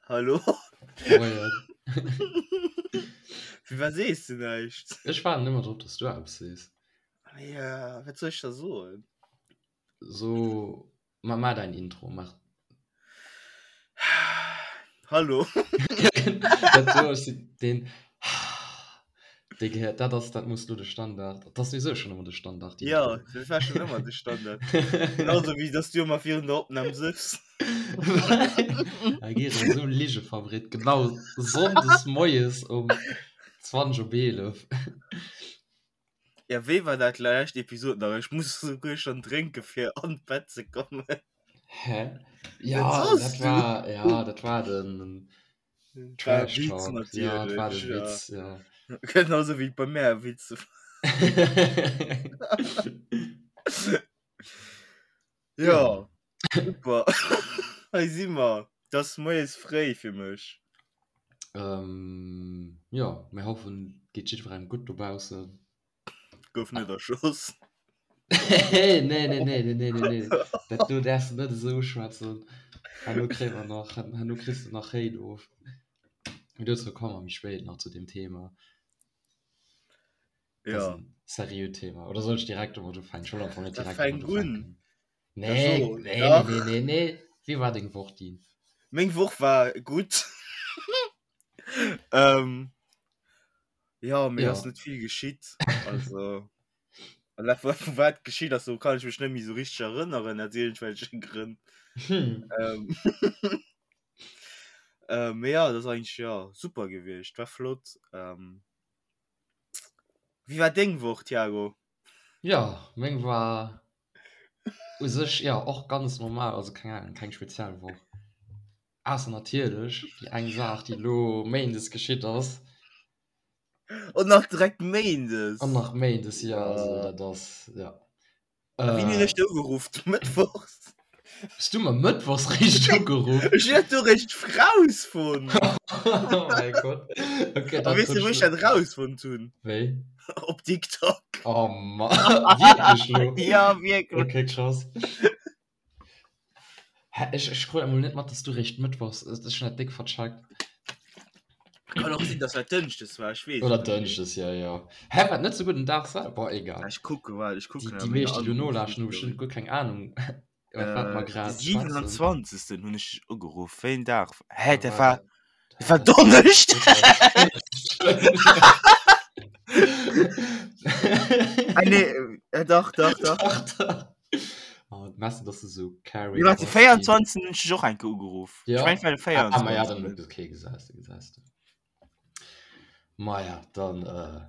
Hallo? Moien. Firwat sees du näischt? Ech waarden ëmmer drop, dass du eppes sees. Ja, wat soll ech da soen? So, ma, ma däin Intro, mach. Hallo? Dat do ass den dee gehéiert, dat ass, dat muss lo de Standard, dat ass souwisou schonn ëmmer de Standard. Ja, dat war schonn ëmmer de Standard. Genauso wéi dass du ëmmer virun der Opnam sëffs. Da geet et esou Ligefabrik, genau sonndes moies um 20 op 11. Ja, wéi war dat lescht Episod nach? Ech muss souguer schon drénke fir an d'Bett ze kommen. Hä? Ja, soss dat du? war, ja, dat war den Dat war e Trash Witz Talk. Ja, dat war natierlech, de ja. Witz, ja. Genauso wéi et bei mär e Witz war. Ja, super. Hei si mer. Et ass moies fréi fir mech. Ähm, jo, mir hoffen, et geet jiddwerengem gutt dobaussen. Gouf net erschoss. Nee, nee, nee, nee, nee, nee, nee. Dat do däerfs de net esou uschwätzen. Herno kréie mer nach, herno kriss de nach Hate of. Mee dozou komme mer méi spéit nach zu deem Thema. Dat ass Ja. en seriöt Thema. Oder soll ech direkt domat ufänken? Ech wollt am Fong net Da direkt fänk domat un. ufänken. Nee, So, nee, dach. nee, nee, nee. Wéi war deng Woch, Dean? Meng Woch war gutt. ähm, ja, mir Ja. ass net vill geschitt. Also, an dat, wa- wat geschitt ass, do kann ech mech net méi sou richteg erënneren, aus iergendwelche Grënn. Hm. Ähm, äh, mee ja, dat ass eigentlech, ja, super gewiescht. War flott. Ähm, wéi war deng Woch, Thiago? Ja, meng war u sech ja och ganz normal, also keng Ahnung, keng speziell Woch. Ausser natierlech déi eng Saach, déi elo méindes geschitt ass. Und nach direkt méindes. An nach méindes, ja, also dat ass, ja. Äh, Wéini hunn ech dech ugeruff? Mëttwochs? Hues du mer mëttwochs réischt ugeruff? Ech hunn dat do réischt rausfonnt. Oh mäi Gott. Okay, A dat weess du, wou ech dat rausfonnt hunn? Wéi? Op TikTok. Oh Mann. Wierklech lo? Ja, wierklech. Okay, krass. Hä, ech, ech krut emol net mat, dass du réischt mëttwochs, ech hunn dat déck vercheckt. Kann och sinn, dass dat Dënschdes war, ech weess Oder et net méi. Dënschdes, ja, ja. Hä, wat net souguer den Dag selwer? Boah, egal. Ech kucke, waart, ech Déi, kucken déi a menger meescht, déi lo nolauschteren, hu Anrufhistory. bestëmmt guer keng Ahnung, iwwer wat mer Äh, de grad schwätzen. 27. hunn ech dech ugeruff. Wéi en Dag? Hä, Da dat war war, dat, dat war dat Donneschdeg! Ah, nee, äh, dach, dach, dach. Dach, dach. Oh, mess du, dass du so Nee, caring warte, bass, Dean. 24. hunn ech dech och eng Kéier ugeruff. Ech Ja. mengen, et war de Ah, ma ja, 24. dann, okay, gesäis de, gesäis de. Maja, dann äh,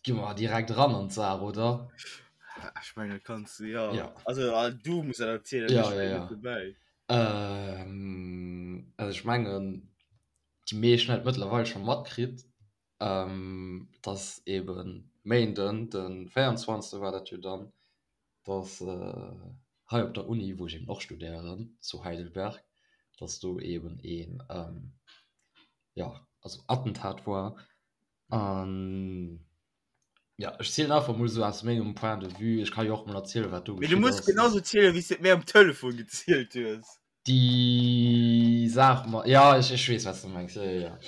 gi mer direkt ran an d'Saach, oder? Ech mengen, dat kanns du, ja. Ja. Also, ah, du muss dat erzielen, Ja, ech ja, war ja. net dobäi. Ähm, also ech mengen, déi meescht hunn et mëttlerweil scho matkritt, ähm, dass eben Méinden, de 24. war dat jo dann, dass äh, hei op der Uni, wou ech eben och studéieren, zu Heidelberg, dass do eben een, ähm, ja, also Attentat war. An ja, ech zielen einfach mol sou aus mengem Point de vue. Ech ka jo och mol erzielen, wat do Mee du geschitt muss ass. genauso zielen, wéi s du et mir am Telefon gezielt hues. Déi Saach mat, ja, ech, ech weess, wat s du mengs, jo, jo, jo.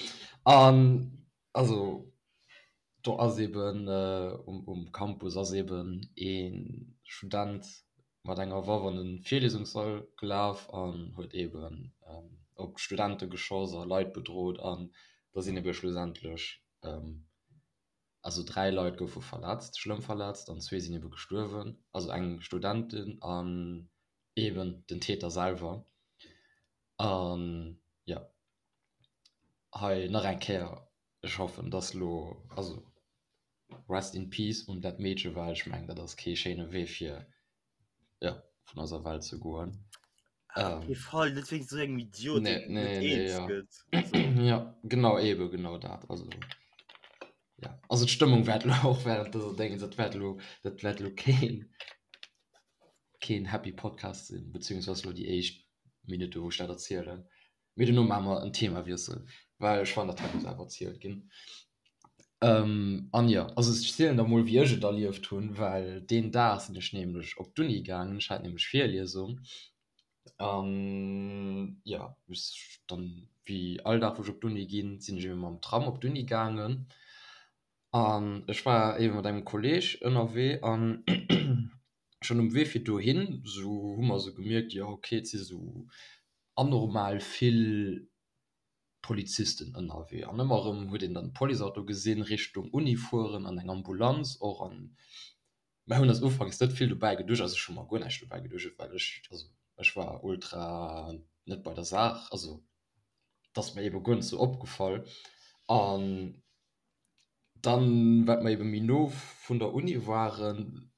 An also do ass eben um, um Campus ass eben ee Student mat enger Waff an de Virlesungssall gelaf an huet eben op d'Studente geschoss a Leit bedrot an da sinn ebe schlussendlech, also 3 Leit goufe verletzt, schlëmm verletzt an zwee sinn ebe gestuerwen, also eng Studentin an eben den Täter selwer. An jo, hei nach eng Kéier, ech hoffen dass lo, also Rest in peace un dat Meedche, well ech mengen dat ass kee schéine Wee fir jo vun eiser Welt ze goen. Op kee Fall, net wéinst esou engem Idiot, Nee, deen net nee, nee, eens ja. gëtt. Also. Ja, genau, eben genau dat. Also ja, also d'Stëmmung wäert lo och während dëser Déngens, dat wäert lo, dat wäert lo keen keen happy Podcast sinn, beziehungsweise lo déi éischt Minutte wou ech dat erzielen. Mee dono maache mer en Themawiessel, well ech fannen dat hei muss awer erzielt ginn. An jo, also ech zielen der mol wéi ech et erlieft hunn, well deen Dag sinn ech nämlech op d'Uni gaangen, ech hat nämlech Virliesung. An jo, ech dann wéi all Dag wou ech op d'Uni ginn, sinn ech ebe mam Tram op d'Uni gaangen. An ech war ebe mat engem Kolleg ënnerwee an schonn um Wee fir dohin sou hu mer sou gemierkt, jo ok et si sou anormal vill Polizisten ënnerwee an ëmmer erëm huet een dann Policeauto gesinn Richtung Uni fueren an eng Ambulanz och an mer hunn eis ufanks net vill dobäi geduecht, also ech hu mer guer näischt dobäi geduecht, well ech, also ech war ultra net bei der Saach, also et ass mer ebe guer net sou opgefall an dann wat mer ebe méi no vun der Uni waren,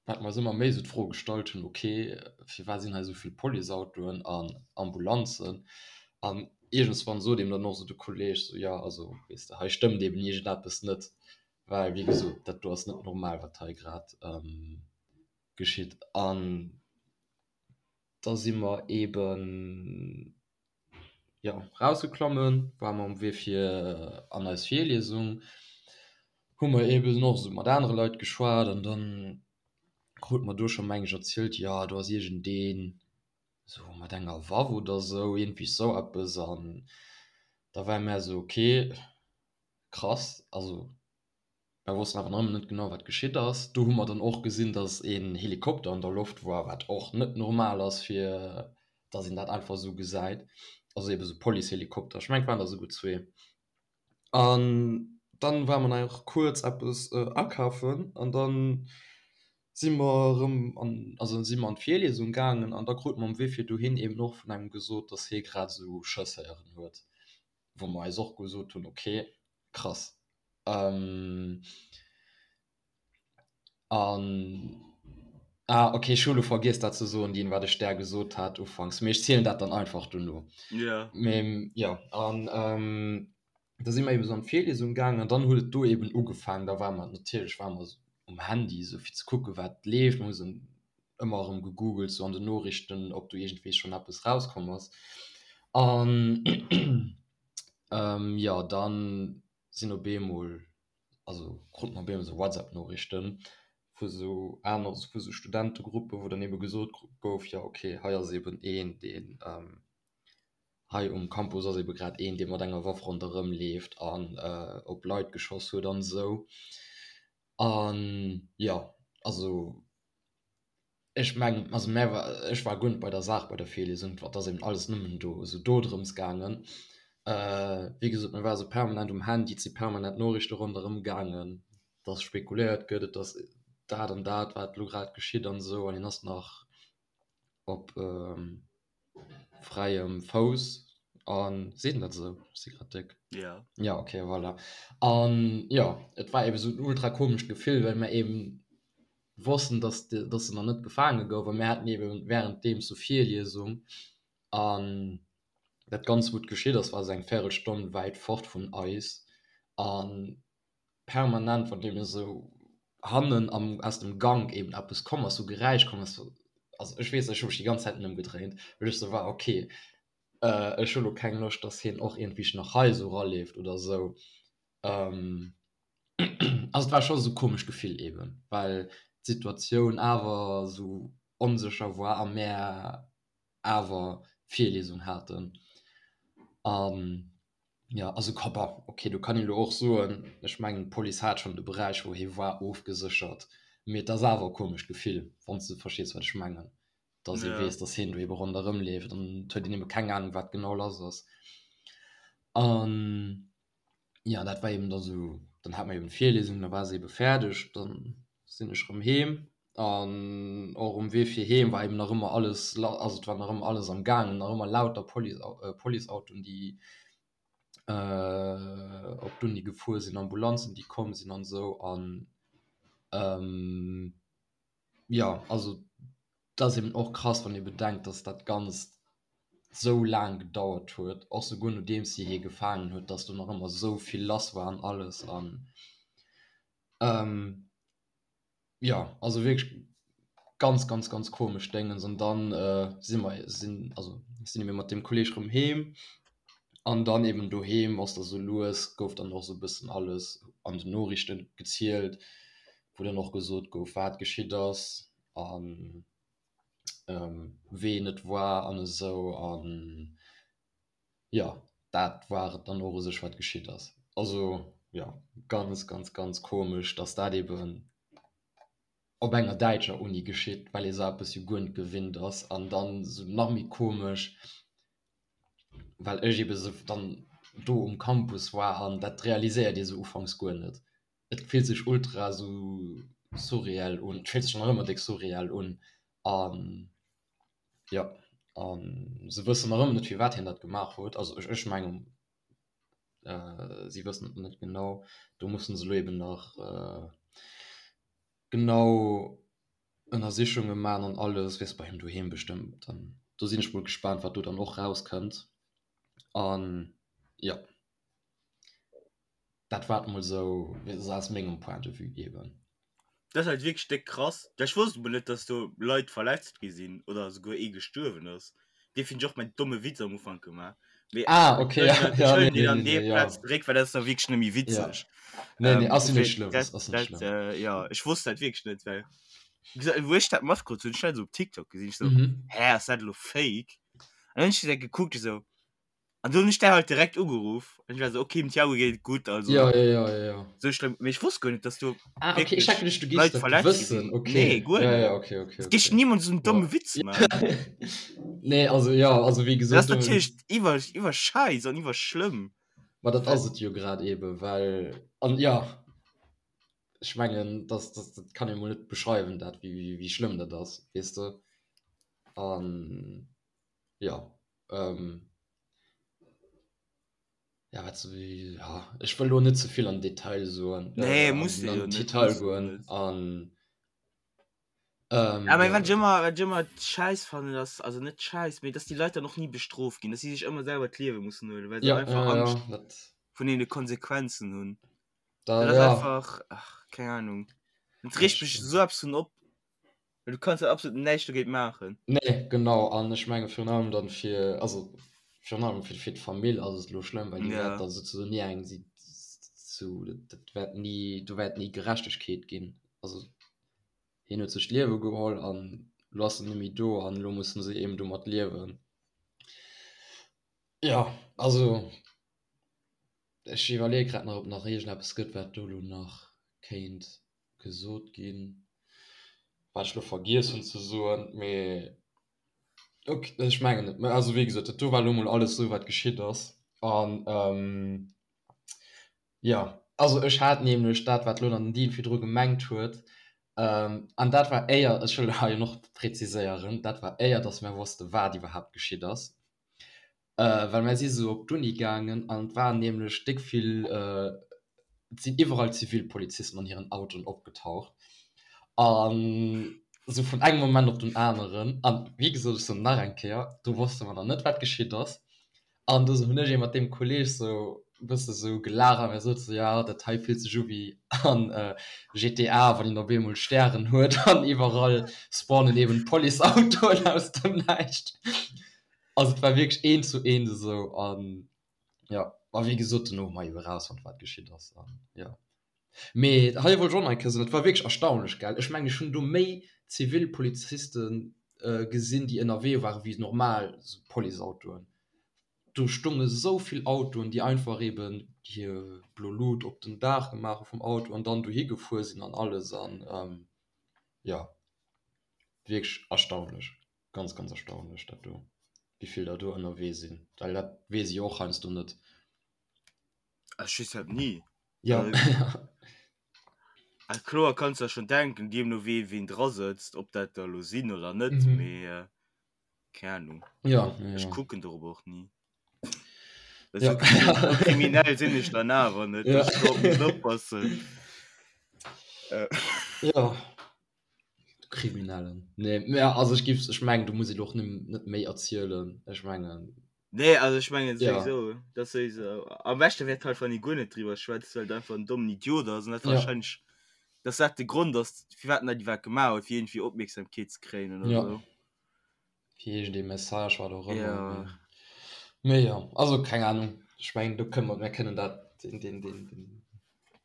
wat mer eis ëmmer méi esou d'Fro gestallt hunn, ok, firwat sinn hei esou vill Policeautoen an Ambulanzen? An iergendswann sot eeben dann och esou de Kolleeg esou, jo, also weess de, hei stëmmt eeben iergendeppes net, well wéi gesot, dat do ass net normal, wat hei grad geschitt. An da si mer eeben, jo, rausgeklommen, ware mer um Wee fir an eis Virliesung, hu mer eben och esou mat anere Leit geschwat an dann krute mer do scho meng ech erzielt, jo do ass iergendeen esou mat enger Waff oder esou, iergendwéi sou eppes an da ware mär esou ok krass, also Mer wossten awer nach ëmmer net genau, wat geschitt ass. Do hu mer dann och gesinn, dass een Helikopter an der Loft war, wat och net normal ass, fir dass een dat einfach esou gesäit. Also eebe sou Policehelikopter. Ech mengen, et waren der esouguer zwee. An dann ware mer nach kuerz eppes akafen an dann si mer erëm an, also si mer an d'Virliesung gaangen an da krute mer um Wee fir dohin eeben och vun engem gesot, dass hie grad esou Schëss héieren huet, wou mer eis och gesot hunn, okay, krass. An ah okay, ech hu lo vergiess dat ze soen, Dean, wat ech där gesot hat ufanks, mee ech zielen dat dann einfach dono. Ja. Mee jo, an da si mer eben esou an d'Virliesung gaangen an dann huet et do eben ugefaangen. Da ware mer natierlech ware mer um Handy esou fir ze kucken, wat leeft. Mer hu sou ëmmer erëm gegoogelt sou an den Noriichten, ob do iergendwéi schonn eppes rauskomm ass. An jo, dann sinn op eemol, also krut mer op eemol sou WhatsApp-Noriichten vu sou aner, vu sou Studentegruppen, wou dann ebe gesot gouf, jo ok, hei ass eben een, deen hei um Campus ass ebe grad een, dee mat enger Waff ronderëm leeft an op Leit geschoss huet an esou. An jo, also Ech mengen, also mär war, ech war guer net bei der Saach bei der Virliesung, et ass eben alles nëmmen do esou do drëms gaangen. Wéi gesot, mir ware sou permanent um Handy, et si permanent Noriichte ronderëm gaangen, dass spekuléiert gëtt, et ass dat an dat, wat elo grad geschitt an esou, an hien ass nach op fräiem Fouss an, seet een dat esou? Ech si grad déck. Ja. Ja, okay, voilà. An jo, et war eben esou en ultra komescht Gefill, well mir eben wossten, dass dass en nach net gefaange gouf a mir haten eben währenddeems sou Virliesung an dat Ganzt wou et geschitt ass, war sou eng Véirelstonn wäit fort vun eis a permanent wann eben esou hannen am aus dem Gank eben eppes komm ass, sou Geräisch komm ass, also ech weess ech hu mech déi ganz Zäit ëmgedréint, well ech sou war ok ech hu lo keng Loscht, dass hien och iergendwéi nach hei sou raleeft oder sou. Also et war scho sou komescht Gefill eben, well d'Situatioun awer sou onsécher war a mär awer Virliesung haten. An jo, also bon, ok, do kann een elo och soen, ech mengen d'Police hat schonn de Beräich wou hie war ofgeséchert, mee et ass awer e komescht Gefill, wann s de verstees wat ech mengen, dass ee weess, dass hien do ebe ronderëm leeft an et huet een ebe keng Anung wat genau lass ass. An ja dat war eben da sou, dann hat mer eben d'Virlesung, da war se ebe fäerdeg, dann sinn ech rëm heem an och um Wee fir heem war eben nach ëmmer alles, also et war nach ëmmer alles am gaangen, nach ëmmer lauter Police Policeautoen déi op d'Uni gefuer sinn, Ambulanzen déi komm sinn an esou an jo also et ass eben och krass wann ee bedenkt, datt dat Ganzt sou laang gedauert huet, och souguer nodeems si hie gefaangen huet, datt do nach ëmmer sou vill lass war an alles an jo also wierklech ganz ganz ganz komesch Déngens. An dann si mer sinn also sinn ebe mat deem Kolleeg rëm heem an dann eben doheem ass da sou lues gouf dann och sou e bëssen alles an den Noriichten gezielt, wou dann och gesot gouf wat geschitt ass an. Ween et war an esou an jo dat war et dann och u sech wat geschitt ass. Also jo ganz ganz ganz komesch, datt dat eben op enger däitscher Uni geschitt, well ee sou eppes jo guer net gewinnt ass an dann esou nach méi komesch, well ech ebe sou dann do um Campus war an dat realiséiert ee sou ufanks guer net. Et fillt sech ultra sou surreal un, et fillt sech nach ëmmer déck surreal un an jo, an se wëssen nach ëmmer net firwat hien dat gemaach huet, also ech ech mengen si wëssen et net genau, do mussen se elo eben nach genau Ënnersichunge man an alles, weess bei him doheem bestëmmt an do sinn ech mol gespaant wat do dann och rauskënnt an jo. Dat war et mol sou aus mengem Point de vue eben. Dat ass halt wierklech déck krass. Ech wosst emol net, dass do Leit verletzt gi sinn oder esouguer ee gestuerwen ass. Dee finn ech och mäin domme Witz am Ufank gemaach. Mee Ah, okay, ja, ech ja, huelen nee, deen an nee, dee nee, ja. Plaz zeréck, well dat ass da wierklech net méi Ja. witzeg. Nee, nee, Ähm, ass jo net dofir, schlëmm, dat, ass net dat, schlëmm. äh, ja, ech wosst dat wierklech net, well wéi gesot, wou ech dat matkrut hunn, ech hat dat esou op TikTok gesinn, ech sou, Mhm. hä, ass dat elo fake? An dann hunn ech dat gekuckt, ech sou, An du hunn ech der halt direkt ugeruff. An ech war so, okay, dem Thiago geet et gutt, also Ja, ja, ja, ja, ja. sou schlëmm. Mee ech wosst guer net, dass do Ah, okay, ech wierklech hat geduecht, du géifs Leit dat verletzt gi wëssen. sinn. Okay. Nee, guer Ja, net. ja, okay, okay, Et géif okay. niemals esou en Ja. domme Witz maachen. Nee, also ja, also wéi Dat gesot, ass do natierlech iwwer, iwwer schäiss an iwwer schlëmm. Ma dat ass et jo grad eben, well, an ja, ech mengen, dass, dass, dat kann ee mol net beschreiwen, dat, wéi, wéi, wéi schlëmm dat ass, weess de. An ja, ähm, ja, wat so, ja, ech wëll lo net ze vill an Detail soen, Nee, äh, muss an, de an jo net, Detail muss de goen net. an ähm, Ja, mee ja. wat ech ëmmer, wat ech ëmmer schäiss fannen, ass, also net schäiss, mee dass déi Leit dann och ni bestrooft ginn, dass si sech ëmmer selwer d'Liewe mussen huelen, well se Ja, einfach ja, ja, Angscht dat, vun deene Konsequenzen hunn. da, Dat ass ja, einfach, ach, keng Ahnung. Dat dat regt mech stimmt. esou eppes vun op. Well du kanns jo absolut näischt dogéint maachen. Nee, genau. An ech menge virun allem dann fir, also virun allem fir, fir d'Famill ass et elo schlëmm, well déi Ja. wäert da souzesoen ni eng, si, zu, dat wäert ni, do wäert ni Gerechtegkeet ginn. Also hien huet sech d'Liewe geholl an elo ass en net méi do an elo musse se eben domat liewen. Jo, also ech iwwerleeë grad nach, ob nach iergendeppes gëtt, wat do elo nach kéint gesot ginn, wat ech elo vergiess hunn ze soen, mee ok, ech mengen net. Mä also wéi gesot, dat do war elo mol alles esou wat geschitt ass. An jo, also ech hat nämlech dat wat elo dann den Dean virdru gemengt huet, an dat war éier, ech wëll hei och präziséieren, dat war éier datt mir wosste wat iwwerhaapt geschitt ass. Well mär si sou op d'Uni gaangen an et waren nämlech déck vill, et sinn iwwerall Zivilpolizisten an hiren Autoen opgetaucht an sou vun engem Moment op den aneren. An wéi gesot, ech soen nach eng Kéier, do wosste mer nach net wat geschitt ass. An du hunn ech ee mat deem Kolleeg sou e bësse sou gelaacht a mir sot sou, jo dat hei fillt sech u wéi an GTA, wann een op eemol Stären huet an iwwerall spawnen eben Policeautoen aus dem Näischt. Also et war wierklech eent zu eent esou an jo, a wéi gesot dono hu mer jo erausfonnt wat geschitt ass an jo. Mee hei wollt ech och nach eng Kéier soen, et war wierklech erstaunlech gell, ech mengen ech hunn do méi zivil Poliziste gesinn déi ënnerwee waren wéi normal Policeautoen. Do stonge sou vill Autoen déi einfach eben hir blo Lut op den Daach gemaach hu vum Auto an dann dohi gefuer sinn an alles an jo wierklech erstaunlech. Ganz ganz erstaunlech dat do, wéivill der do ënnerwee sinn, well dat weess ech jo och heiansdo net. Ech weess dat ni. Ja. Ah, kloer kanns der schon denken, deemno wéi ween dra sëtzt, ob dat der elo sinn oder net, Mhm. mee äh, keng Ahnung. Ja, ja, Ech ja. kucken dorop och ni. Ja. Esou esou kriminell sinn ech dann awer net, Ja. dass ech dorop muss oppassen. Äh. Ja. Kriminellen. Nee, mä also ech giff, ech mengen do muss een och net méi erzielen, ech mengen. Nee, also ech mengen Ja. souwisou, dat souwisou. Am beschte wär et halt wann ee guer net driwwer schwätzt, well et einfach en dommen Idiot ass an dat Ja. wahrscheinlech, dass dat de Grond ass firwat en dat iwwerhaapt gemaach huet, fir iergendwéi Opmierksamkeet ze kréien oder Ja. sou. Fir iergendee Message, wat och ëmmer, Ja. mee, mee jo, also keng Ahnung, ech mengen do kënne mer, mir kënnen dat, deen, deen, deen, deen,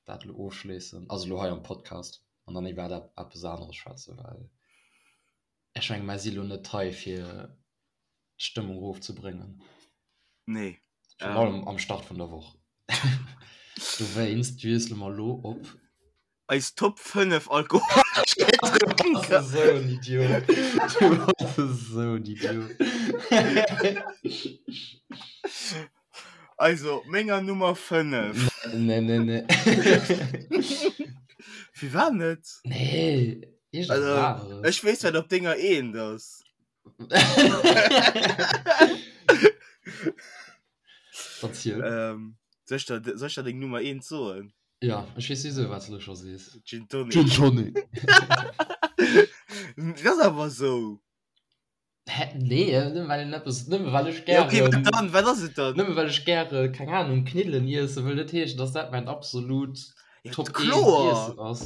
dat elo ofschléissen, also elo hei am Podcast. an dann iwwer eppes aneres schwätzen, well. Ech menge mer si lo net hei fir d'Stëmmung erofzebréngen. Nee. Virun allem am Start vun der Woch. Dowéinst wiessele mer lo op. Eis Top 5 alkoholesch Gedrénker. Du bass esou en Idiot. Du bass esou en Idiot. Also, menger Nummer 5. Nee, nee, nee. Firwat net? Nee, iergendwas aneres. Ech weess, wat op denger eent ass. Verziel. Ähm, soll ich der, soll ich der deng Nummer 1 soen? Ja, ech weess sowieso, wat du lo scho sees. Gin Tonic. Gin Tonic. Dat ass awer sou. Hä? Nee, nëmme well een eppes, nëmme well ech Ja, okay, gären, wat dann? Wat ass et dann? nëmme well ech gäre, keng Ahnung, Kniddelen iesse wëll net heeschen, dass dat mäin absolut Ja, Top 1 kloer. Iessen ass.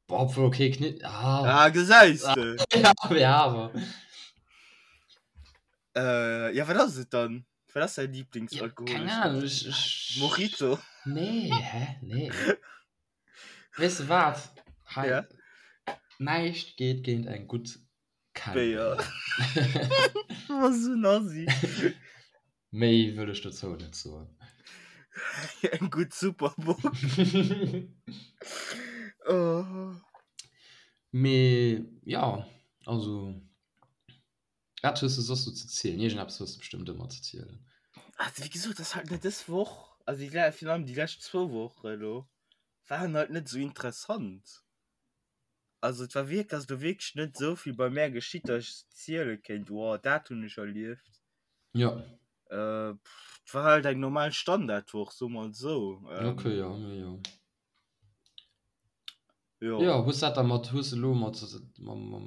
Boah, obwohl, okay, Knidd, ah. Ah, gesäis de. Ja, ja, awer. Äh, ja, wat ass et dann? Wat ass däin Ja, Lieblingsalkoholesch keng Ahnung, ech, ech. Mojito. Nee, hä? Nee. Weess de wat? Hei, Ja. näischt geet géint eng gutt Béier. Du bass esou en Assi. Méi wëll ech dozou net soen. Eng gutt Superbock. Oh. Mee jo, also wat hues de soss sou ze zielen? Iergendeppes hues de bestëmmt ëmmer ze zielen. Also wéi gesot, ass halt net dës Woch, also déi le virun allem déi lescht zwou Woche elo waren halt net esou interessant. Also et war wierk ass do wierklech net esou vill bei mär geschitt, datt ech ziele kéint, wow dat hunn ech erlieft. Jo. Äh, et war halt eng normal Standardwoch, soe mer et esou. Okay, jo, mee jo. Jo. Jo, hues dat da mat, hues de elo mat, mam, mam,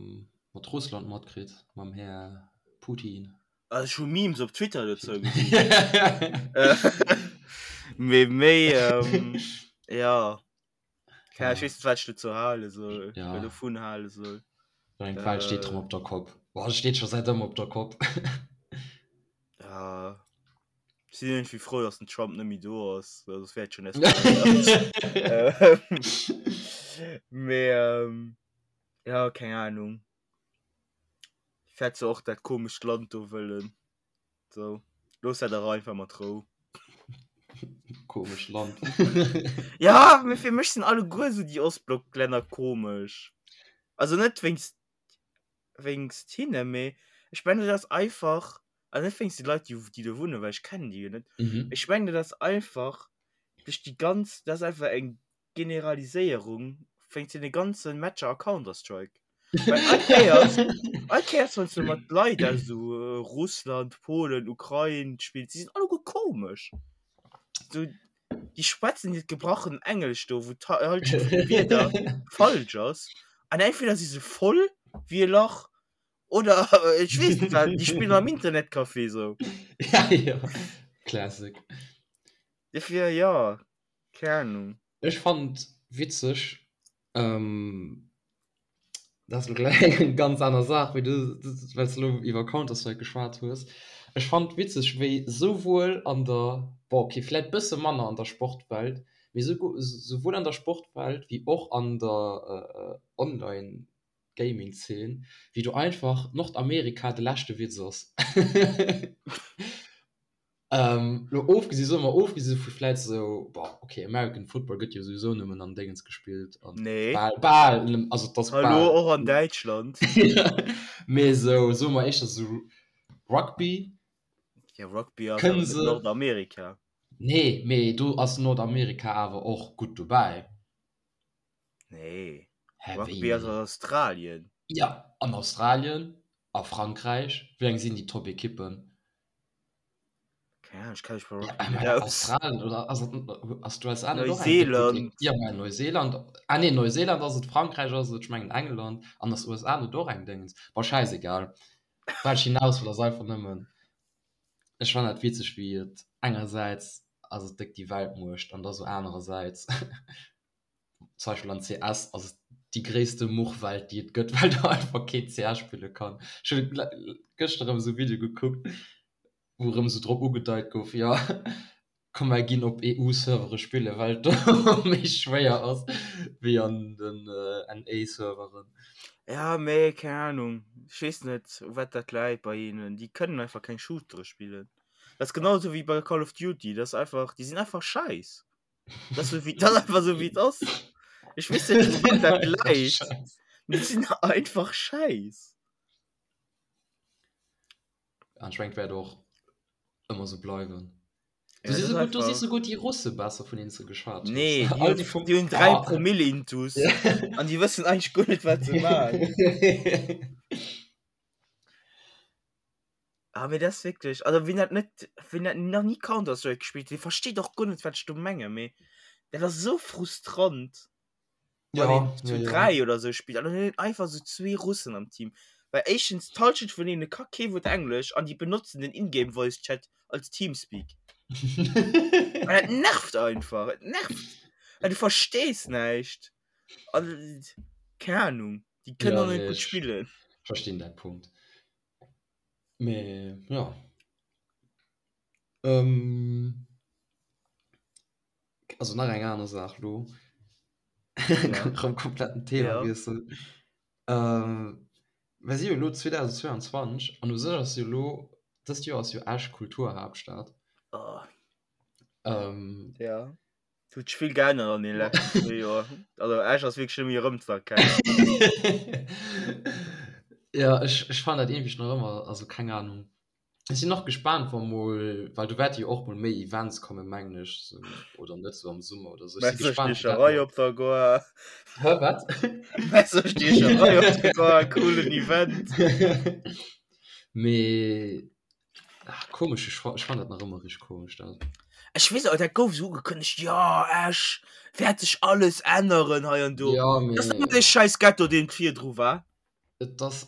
mat Russland matkritt, mam Här Putin? Also ech hu Memes op Twitter dozou gesinn. Mee méi, ähm, ja. Keine Ahnung, ech weess net, wat ech dozou hale soll, Ja. oder dovun hale soll. Eng D'Welt steet rëm op der Kopp. Boah, se steet scho säit ëmmer op der Kopp. Ja. Ech sinn iergendwéi frou, dass den Trump net méi do ass, well soss wär et schonn eskaléiert. Mee ja, keng Ahnung. Wäert se och dat komescht Land do wëllen. Sou, looss dat awer einfach mat Rou. Komescht Land. Ja, mee fir mech sinn alleguer sou déi Ostblocklänner komesch. Also net wéinst wéinst hinne, mee ech mengen dat ass einfach, also net wéinst de Leit déi déi do wunnen, well ech kennen déi jo net, Mhm. ech mengen dat ass einfach duerch déi ganz, dat ass einfach eng Generaliséierung wéinst deene ganze Matcher a Counter-Strike. Well all Kéiers, all Kéiers wann s du mat Leit aus esou Russland, Polen, Ukrain spills, déi sinn alleguer komesch. Sou, déi schwätzen hiert gebrachen Englesch do, wou d'Hallschent vun de Wierder falsch ass. An entweder si se voll wéi e Lach oder ech weess net wat, déi spillen am Internetcafé sou. Ja, ja. Classic. Dofir, jo, keng Ahnung. Ech fannen et witzeg, ähm, Dat ass elo gläich eng ganz aner Saach, wéi du, well s de elo iwwer Counter-Strike geschwat hues. Ech fannen et witzeg, wéi souwuel an der, bon okay, vläit bësse manner an der Sportwelt, mee souwuel an der Sportwelt wéi och an der Online-Gaming-Zeen, wéi do einfach Nordamerika de leschte Witz ass. Ähm, lo ofgesi soe mer ofgesi vu vläit sou, bon, okay, American Football gëtt jo souwisou nëmmen an Déngens gespillt an Nee. bal, bal, nëm- also et ass Hallo, bal. och an Däitschland. Mee sou, soe mer éischter sou Rugby. Ja, Rugby ass Kënne awer net se. Nordamerika. Nee, mee do ass Nordamerika awer och gutt dobäi. Nee. Hä, wéi Rugby ass nee? an Australien. Ja, an Australien, a Frankräich, wéi eng sinn déi Top-Ekippen? Keine Ahnung, ich kenn mich bei Ja, Rugby net mä aus. Australien oder ass et ass d'USA net och eng déck gutt Neuseeland. Ja, mä Neuseeland, ah nee, Neuseeland ass et, Frankräich ass et, ech mengen England an ass USA net och eng Déngens? Bon, schäisegal. Wat ech hinaus wëll ass einfach nëmmen, ech fannen dat witzeg wéi et engersäits ass et déck déi Weltmuecht an da sou anerersäits zum Beispill an CS ass et déi gréisste Muchwelt déi et gëtt, well do einfach keen CS spille kann. Ech hunn gëschter erëm esou e Video gekuckt, wou erëm esou drop ugedeit gouf, jo komm mer ginn op EU-Servere spille well et do méi schwéier ass wéi an den NA-Serveren. Ja, mee keng Ahnung. Ech weess net, u wat dat läit bei hinnen. Déi kënnen einfach keng Shootere spillen. Dat ass genau esou wéi bei Call of Duty. Dat ass einfach, déi sinn einfach scheiss. Dat ass esou wéi, dat ass einfach esou wéi et ass. Ech weess net, u wat dat läit. Mee déi sinn einfach scheiss. An ech mengen, et wäert och ëmmer esou bleiwen. Du si souguer, du si souguer déi Russe besser vun deenen s de geschwat hues. Nee, déi hunn, déi vum, déi hunn 3 ah. Promille intus an déi wëssen eigentlech guer net wat se maachen. Ah, mee dat ass wierklech, also wien dat net, wien dat nach ni Counter-Strike gespillt huet, dee versteet och guer net wat ech do mengen, mee dat ass esou frustrant. Ja, wann een zu ja, ja. 3 oder sou spillt an dann hunn einfach sou zwee Russen am Team. Well éischtens d'Halschent vun deene ka kee Wuert Englesch an déi benotzen den Ingame Voice Chat als Teamspeak. An dat nervt einfach, et nervt. Well du verstees näischt. An keng Ahnung, déi kënnen Ja, och net nee, gutt ech spillen. verstinn däi Punkt. Mee ja. Ähm, also nach eng aner Saach lo. Ja. Rëm kompletten Themawiessel. Ja. Ähm, mir si jo elo 2022 an u sech ass jo elo, dëst Joer ass jo Esch Kulturhaaptstad. Oh. Ähm, Ja. Et huet sech vill geännert an deene leschten zwee Joer. Also Esch ass wierklech net méi erëmzëerkennen. Ja, ech, ech fannen dat iergendwéi nach ëmmer, also keng Ahnung. Ech sinn och gespaant wa mol, well do wäerte jo och mol méi Events kommen, mengen ech, sou, oder net, sou am Summer oder sou. Ech si gespaant, wéi dat Messerstiecherei mol. op der Goar. Hä, wat? Messerstiecherei op der Goar, coolen Event. Mee, ach, komesch, ech ech fannen dat nach ëmmer richteg komesch, dat. Ech weess och, dat gouf sou ugekënnegt, jo, Esch wäert sech alles änneren hei an do. Ja, Dat ass mee. ëmmer dee scheiss Ghetto, deen virdru war. Et ass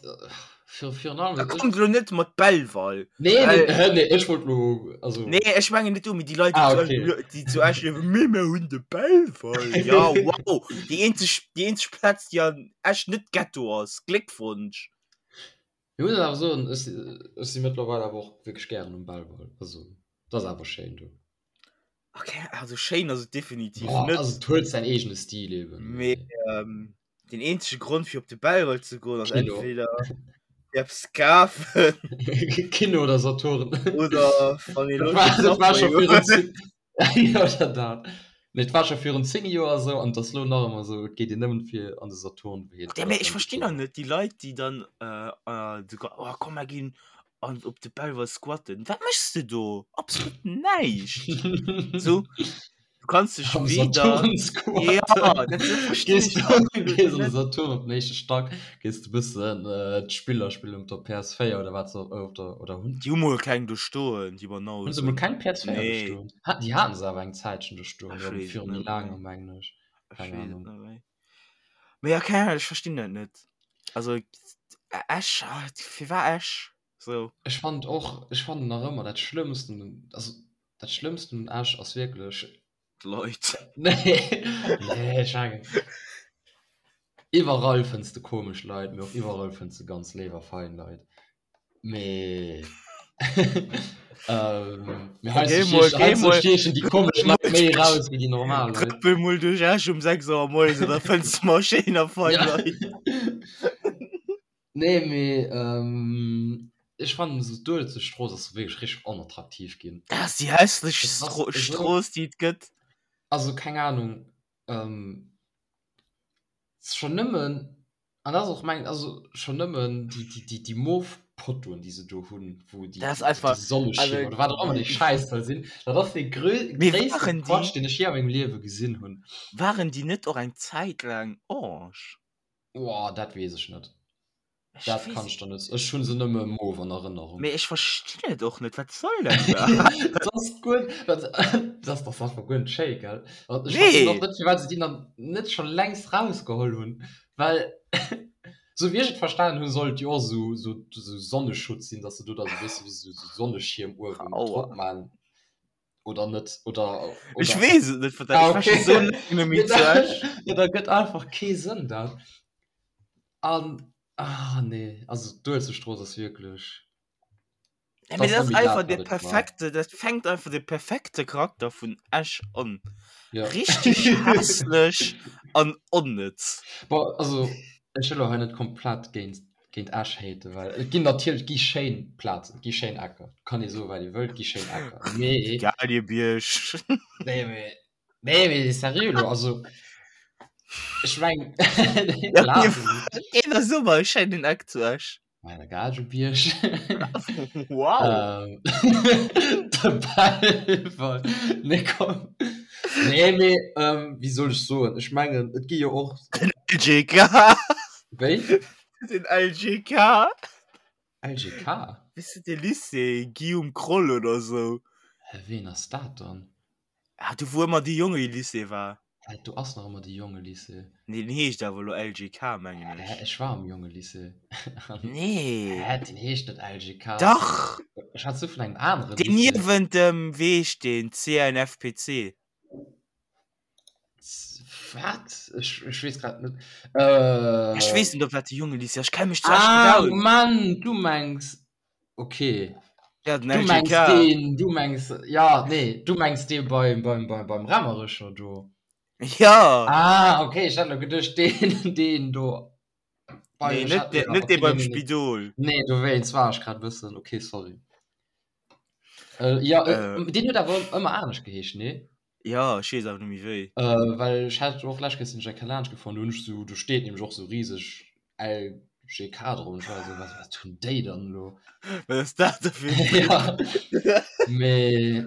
fir virun allem Da kommt elo net mat Belval. Nee, nee, hä, nee, ech wollt lo, also. Nee, ech mengen net du, mee déi Leit, Ah, déi zu okay. Esch, déi zu Esch liewen, mee mir hunn de Belval. Ja, wow, déi eenzeg, déi eenzeg Plaz, déi an Esch net Ghetto ass. Gléckwonsch. Ech muss awer soen, ech si, ech si mëttlerweil awer och wierklech gären um Belval. Also, et ass awer schéin do. Okay, also schéin ass et definitiv Boah, net. also et huet säin eegene Stil eben. Mee ähm, den eenzege Grond fir op de Belval ze goen ass Kino. entweder fir eppes kafen Kino oder Saturn. oder wann ee Dat Loscht war, op dat war Subway scho virun huet. 10 Ja, oder dat. Nee, et war scho virun 10 Joer esou an et ass lo nach ëmmer esou, et geet een nëmmen fir an de Saturn wéi Ja, mee ech verstinn och net déi Leit, déi dann äh, äh, sogar, oh komm mer ginn an op de Belval squatten. Wat méchs de do? Absolut näischt. So, du kannst dech Am weder Saturn squatten. Ja, dat verstinn Gees ech du, absolut gees an de net. Saturn op den éischte Stack, gees de bëssen äh, d'Spiller spillen op der PS4 oder wat se op der oder hunn. Déi hu mol keng do stoen, déi Hunn se mol Banausen. keng PS4 do Nee. stoen? Ha, déi haten se awer eng Zäitchen do stoen, Ech jo, weess et viru méi net laangem, méi. mengen ech. Ech Keng weess et Ahnung. net méi. Mee ja, keng Ahnung, ech verstinn dat net. Also Esch, ah, firwat Esch? So. Ech fand och, ech fannen nach ëmmer dat Schlëmmsten, also dat Schlëmmsten un Esch ass wierklech. D'Leit. Nee, nee, ech mengen, iwwerall fënns de komesch Leit, mee och iwwerall fënns de ganz léif a fein Leit. Mee ähm, mee Geh heiansdo mol, stiechen, geh heiansdo mol, stiechen déi komesch Leit méi raus wéi déi normal Leit. Trëppel mol duerch Esch um 6 Auer moies an da fënns de mol schéin a fein Ja. Leit. Nee, mee ähm, ech fannen esou d'Uelzechtstrooss ass wierklech richteg onattraktiv ginn. Dat ass déi hässlechst Et ass Stro esou, Strooss, déi et gëtt. also keng Ahnung, ähm, schonn nëmmen, an dat ass och meng, also schonn nëmmen déi, déi, déi, déi mof Pottoen, déi se do hunn, wou déi, Dat ass déi, déi einfach, Sonneschiermer also oder wat och ëmmer dee Schäiss soll sinn, dat ass dee grö mee gréisste waren déi, Quatsch, deen ech jee a mengem Liewe gesinn hunn. waren déi net och eng Zäit laang orange? Boah, dat weess ech net. Ech Dat weess kann et ech der net. Ech hunn se nëmme mauve an Erënnerung. Mee ech verstinn et och net, wat soll dat iwwerhaapt? Dat ass guer, dat, dat ass dach einfach guer net schéi, gell? An ech verstinn och Nee! net, firwat se déi dann net scho längst rausgeholl hunn, well sou wéi ech et verstanen hunn, soll et jo och sou, sou, sou Sonneschutz sinn, dass se do da sou bësse wéi sou, sou Sonneschierm uewen Aua. drop man. Oder net, oder, Ech oder. weess et net, wat dat, Ah, ech war scho okay. sou laang net méi zu Esch. Ja, dat gëtt einfach kee Sënn, dat. An, ah, nee, also d'Uelzechtstrooss ass wierklech, Ja, dat mee ass dat ass net méi dat, einfach wat de et war. perfekte, dat fänkt einfach de perfekte Charakter vun Esch an. Ja. Richteg hässlech an onnëtz. Bon, also. Ech wëll elo hei net komplett géint, géint Esch haten, well et ginn natierlech, et gi schéin Plazen, et gi schéin Ecker, kann ee soen, wat ee wëllt, et gi schéin Ecker, mee. Galiebierg. Nee, mee, nee, mee seriö elo, also ech meng, Plazen. Deen ass ëmmer e schéinen Eck zu Esch. Bei der Gagebierg. Wow. Ähm, de Belval. Nee, komm. Nee, mee, ähm, wéi soll ech soen? Ech mengen, et gi jo och. Den LGK. Wéi? Den LGK. LGK? Wéi de Lycée Guillaume Kroll oder sou. Hä, ween ass dat dann? Ah, do wou ëmmer de Jongelycée war. Hä, do ass nach ëmmer de Jongelycée. Nee, den heescht awer elo LGK, mengen ech. Hä, ech war am Jongelycée. Nee. Hä, den heescht net LGK. Dach! Ech hat sou vun engem anere Lycée. Deen niewent dem, wéi heescht deen, CNFPC. Wat? Ech, ech weess grad net. Äh. Ech weess net, ob dat de Jongelycée ass. Ech kenne mech zu Esch net aus. Ah, Moment, du mengs. Okay. Ja, den Du mengs LGK. deen, du mengs, ja, nee, du mengs dee beim, beim, beim, beim Raemericher do. Ja. Ah, okay, ech hat elo geduecht, deen, deen do. Bei, Nee, net dee, net dee beim Spidol. Nee, dowéinst war ech grad e bëssen, okay, sorry. Äh, ja, äh, Äh. deen huet awer ëmmer anescht geheescht, nee? Ja, ech weess awer net méi wéi. Äh, well ech hat och lescht Kéier sinn ech eng Kéier laanscht gefuer, do hunn ech sou, do steet nämlech och sou riseg LGK drop an ech war esou, wat, wat hunn déi dann elo? Wat ass dat da fir en Trip? Ja, mee,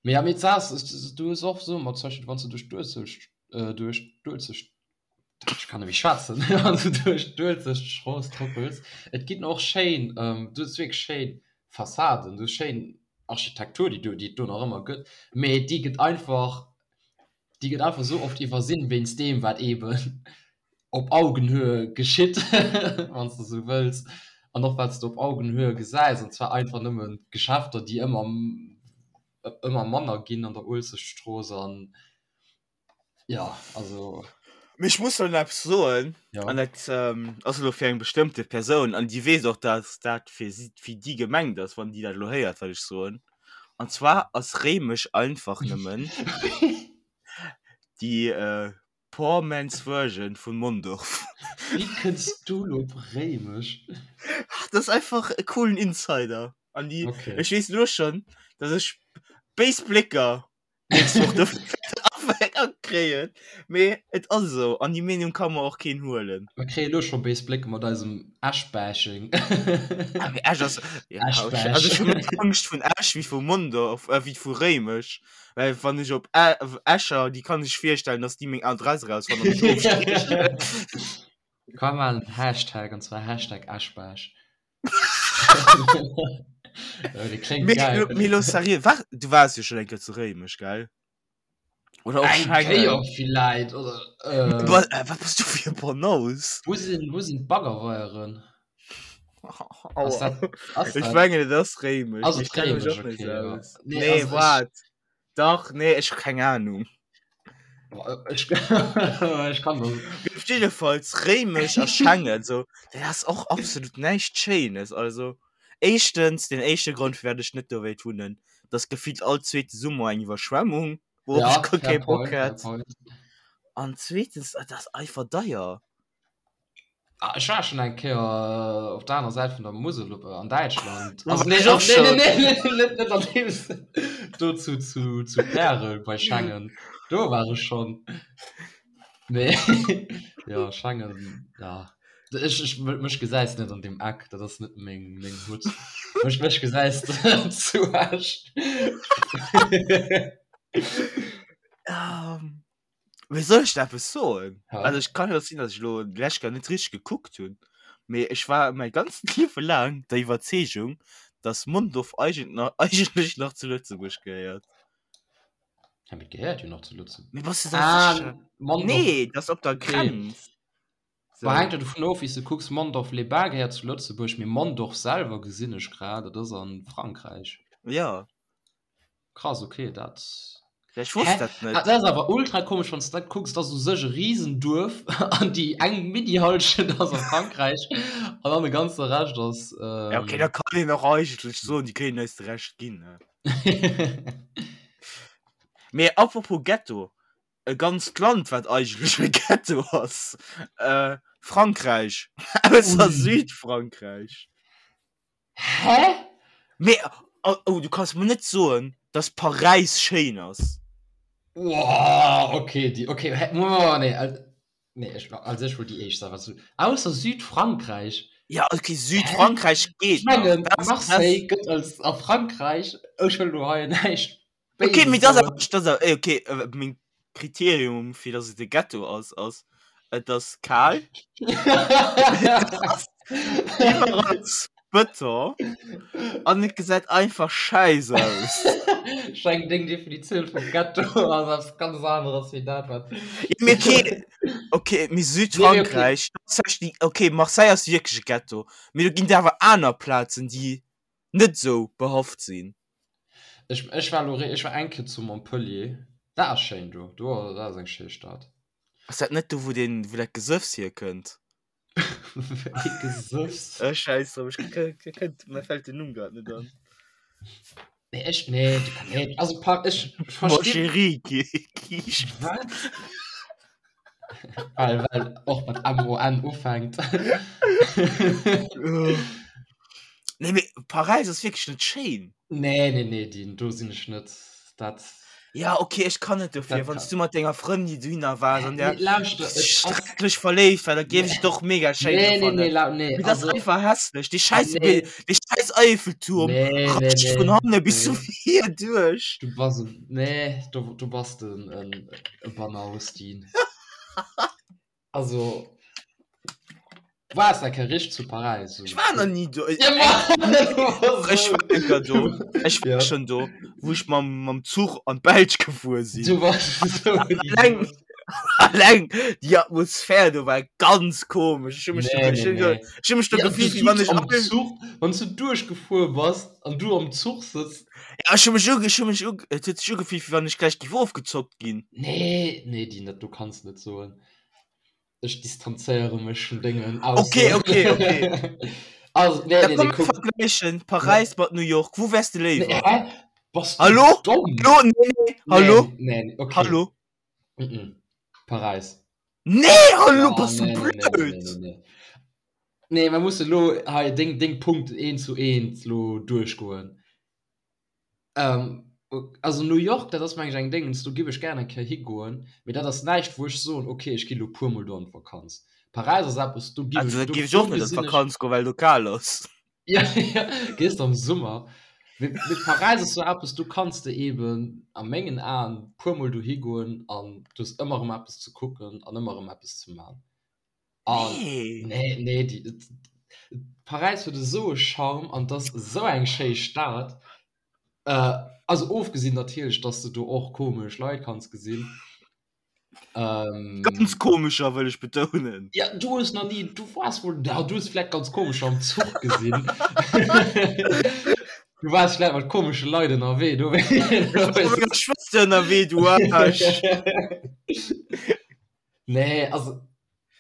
mee ja, mee d'Saach ass, du hues och sou mat zum Beispill wann s du duerch d'Uelzecht, duerch d'Uelzecht, ech kann net méi schwätzen, wann s du duerch d'Uelzechtstrooss trëppels, et ginn och schéin, du hues wierklech schéin Fassaden, du hues schéin Architektur, déi do, déi et do nach ëmmer gëtt, mee déi gëtt einfach, déi gëtt einfach esou oft iwwersinn wéinst deem, wat eeben op Augenhöhe geschitt, wann s de esou wëlls, an och wat s de op Augenhöhe gesäis, an zwar einfach nëmmen d'Geschäfter, déi ëmmer, ëmmer manner ginn an der Uelzechtstrooss an. Ja, also. Mee ech muss elo eppes soen, Ja. an dat ähm, ass elo fir eng bestëmmte Persoun, an déi weess och, dass dat fir si, fir déi gemengt ass, wann déi dat elo héiert, wat ech soen. An zwar ass Réimech einfach nëmmen déi äh, poor man's version vun Mondorf. Wéi kënns du elo op Réimech? Dat ass einfach e coolen Insider. An déi, Okay. ech weess elo schonn, dass ech béis Blécker nächst Woch dofir kréien. Mee et ass esou an déi Meenung ka mer och keen huelen. Mer kréie lo scho béis Blécke mat eisem Esch-Bashing. Ah, mee Esch ass ja, Esch-Bash. also ech hu méi Angscht vun Esch wéi vu Mondorf, äh, wéi vu Réimech. Well wann ech op Ä Escher, déi kann sech virstellen, dass déi meng Adress erausfannen an mech ofstiechen. Komm mer maachen en Hashtag, an zwar Hashtag Esch-Bash. Mee lo seriö, war, du waars jo schon eng Kéier zu Réimech, gell? Oder och Eng Schengen. Kéier villäit, oder äh, Wa- äh, Wat bass du fir e Banause? Wou sinn, wou sinn d'Baggerweieren? Ass Aua. dat, ass Ech dat? mengen et ass Réimech, Ass mee et ech kenne mech Réimech, och net okay, esou ja. aus. Nee, Nee, also ech, waart. Dach, nee, ech hu keng Ahnung. Boah, ech, ech kann das. Op jiddefalls Réimech a Schengen, so, dat ass och absolut näischt Schéines. Also, éischtens, den éischte Grond, firwat ech net do wéilt wunnen, dat ass gefillt all zweete Summer eng Iwwerschwemmung, wourop Ja, ech guer fair kee Bock point, fair hätt. point. An zweetens, dat ass einfach deier. Ah, ech war schon eng Kéier äh, op der aner Säit vun der Musel op, äh, an Däitschland. Do Also, war nee, ech och nee, nee, schon. nee, nee, net, net an deem Sënn. Do zu, zu, zu Pärel bei Schengen. Do war ech schon. Nee, ja, Schengen, ja. Ech, ech, mech gesäis net an deem Eck, dat ass net meng, meng Hut. Mech, mech gesäis de zu Esch. Ähm. Wéi soll ech da eppes soen? Ja. Also ech kann jo sinn, dass ech lo d'lescht Kéier net richteg gekuckt hunn, mee ech war mäi ganzt Liewe laang der Iwwerzeegung, dass Mondorf eigent eigentlech nach zu Lëtzebuerg gehéiert. Ja, mee et gehéiert jo nach zu Lëtzebuerg. Mee bass du da Ah, sécher? Mondorf. Nee, dat ass op der Okay. Grenz. Bah, Sou. hänkt jo dovun of, wéi s de kucks. Mondorf-les-Bains gehéiert zu Lëtzebuerg, mee Mondorf selwer gesinn ech grad, dat ass a Frankräich. Ja. Krass, okay, dat. Ja, ech wosst Hä? dat net. Ah, dat ass awer ultra komesch, wann s de dat kucks, dat ass u sech e Riesenduerf an déi eng Mini-Hallschent ass a Frankräich an dann de ganze Rescht ass. Ähm... Ja, okay, da kann een och eigentlech soen, déi kéinten eis de Rescht ginn, ne? Mee apropos Ghetto. E ganzt Land, wat eigentlech e Ghetto ass. Äh, Frankräich. Ausser Südfrankräich. Hä? Mee, oh, oh, du kanns mer net soen, dass Paräis schéin ass. Wow, okay, déi, okay, hä, oh, nee, nee, ech, also ech wollt déi éischt sagen, was du, ausser Südfrankräich. Ja, okay, Südfrankräich geet Ech mengen, Marseille gëtt als a Frankräich, ech wëll lo hei näischt Okay, mee das ass, das ass, okay, äh, meng Kriterium fir dass et e Ghetto ass, ass et ass kal, iwwerall Bëton an et gesäit einfach schäiss aus. Ech mengen deng Definitioun vum Ghetto ass eppes ganz aneres wéi dat wat. Ja, mee okay, okay, mee Südfrankräich, dat ass okay, Marseille ass wierklech e Ghetto, mee do ginn et awer aner Plazen déi net sou behaft sinn. Ech, ech war lo, ech war eng Kéier zu Montpellier. Dat ass schéin do. Do, dat ass eng schéi Stad. Ass dat net do, wou deen, wou dat Gesëffs hierkënnt? Wéi Gesëffs? Äh, schäiss drop, ech kënnt, mir fält den Numm grad net an. Nee, ech, nee, nee, also pa, ech verstinn. Mon chéri, Kiischt. Wat? Well, well och mat M-O-N ufänkt. Nee, mee Paräis ass wierklech net schéin. Nee, nee, nee, Dean, do sinn ech net. Dat. Ja, okay, ech kann net dofir, wann du mat denger Frëndin dohinner waars an der Nee, lauschter, et ass. schrecklech verléift war, da géif ech et och mega schéin Nee, nee, fannen. nee, lau, nee, Mee dat ass also. einfach hässlech. Dee schäiss Nee. Bild, dee schäiss Eiffelturm Nee, nee, ratscht nee, vun hanne bis nee. vir duerch. Du bass en, nee, du, du bass den, en, e Banaustin. Also, du waars eng Kéier richteg zu Paräis. Ech war nach ni do. Ja, ma, Ech war eng Kéier do. Ech war Ja. schon do, wou ech mam, mam Zuch an d'Belsch gefuer sinn. Du warst so Alleng, alleng déi Atmosphär do war ganz komesch. Ech hu mech Nee, do, ech nee, hunn do, nee. ech hu mech do Ja, du gefillt, wéi wann sitz ech am all Zuch, wann s du duerchgefuer bass an du am Zuch sëtz. Ja, ech hu mech uge, ech hu mech uge, et huet sech ugefillt, wéi wann ech gläich géif ofgezockt ginn. Nee, nee, déi net, du kanns net soen. Ech distanzéiere mech vun dengen Okay, Aussoen. okay, okay. Also, nee, Da nee, komm nee, mir kuck. vergläichen Paräis mat New York. Wou wäers de Nee, léiwer? hä? Bass du Hallo? domm? Hallo? Nee, nee, hallo? Nee, nee, okay. Hallo? Mm-mm. Paräis. Nee, hallo, Ja, bass du nee, nee, nee, nee, blöd? nee, nee. Nee, mer musse lo hei deng, deng Punkten eent zu eent lo duerchgoen. Ähm, also New York, dat ass meng ech eng Déngens, do giff ech gär eng Kéier higoen, mee dat ass näischt wou ech soen, okay, ech gi lo puer mol do an d'Vakanz. Paräis ass eppes, do giff Also ech, da do, giff ech do och net an gesinn ech. d'Vakanz goen, well do kal ass. Ja, ja, gees de am Summer. Mee, mee Paräis ass sou eppes, do kanns de eben a mengen Aen puer mol dohi goen an du hues ëmmer erëm eppes ze kucken an ëmmer erëm eppes ze man. An Nee. nee, nee, déi, et, Paräis huet esou e Charme an 't ass esou eng schéi Stad. Äh, also ofgesinn natierlech, dass de do och komesch Leit kanns gesinn. Ähm, Ganz komescher wëll ech betounen. Ja, du hues nach nie, du warst wohl, ja, du hues vielleicht ganz komescher am Zuch gesinn. Du warst vielleicht mat komesche Leit ënnerwee, du Ech war mat menger Schwëster ënnerwee, du Aarsch. Nee, also,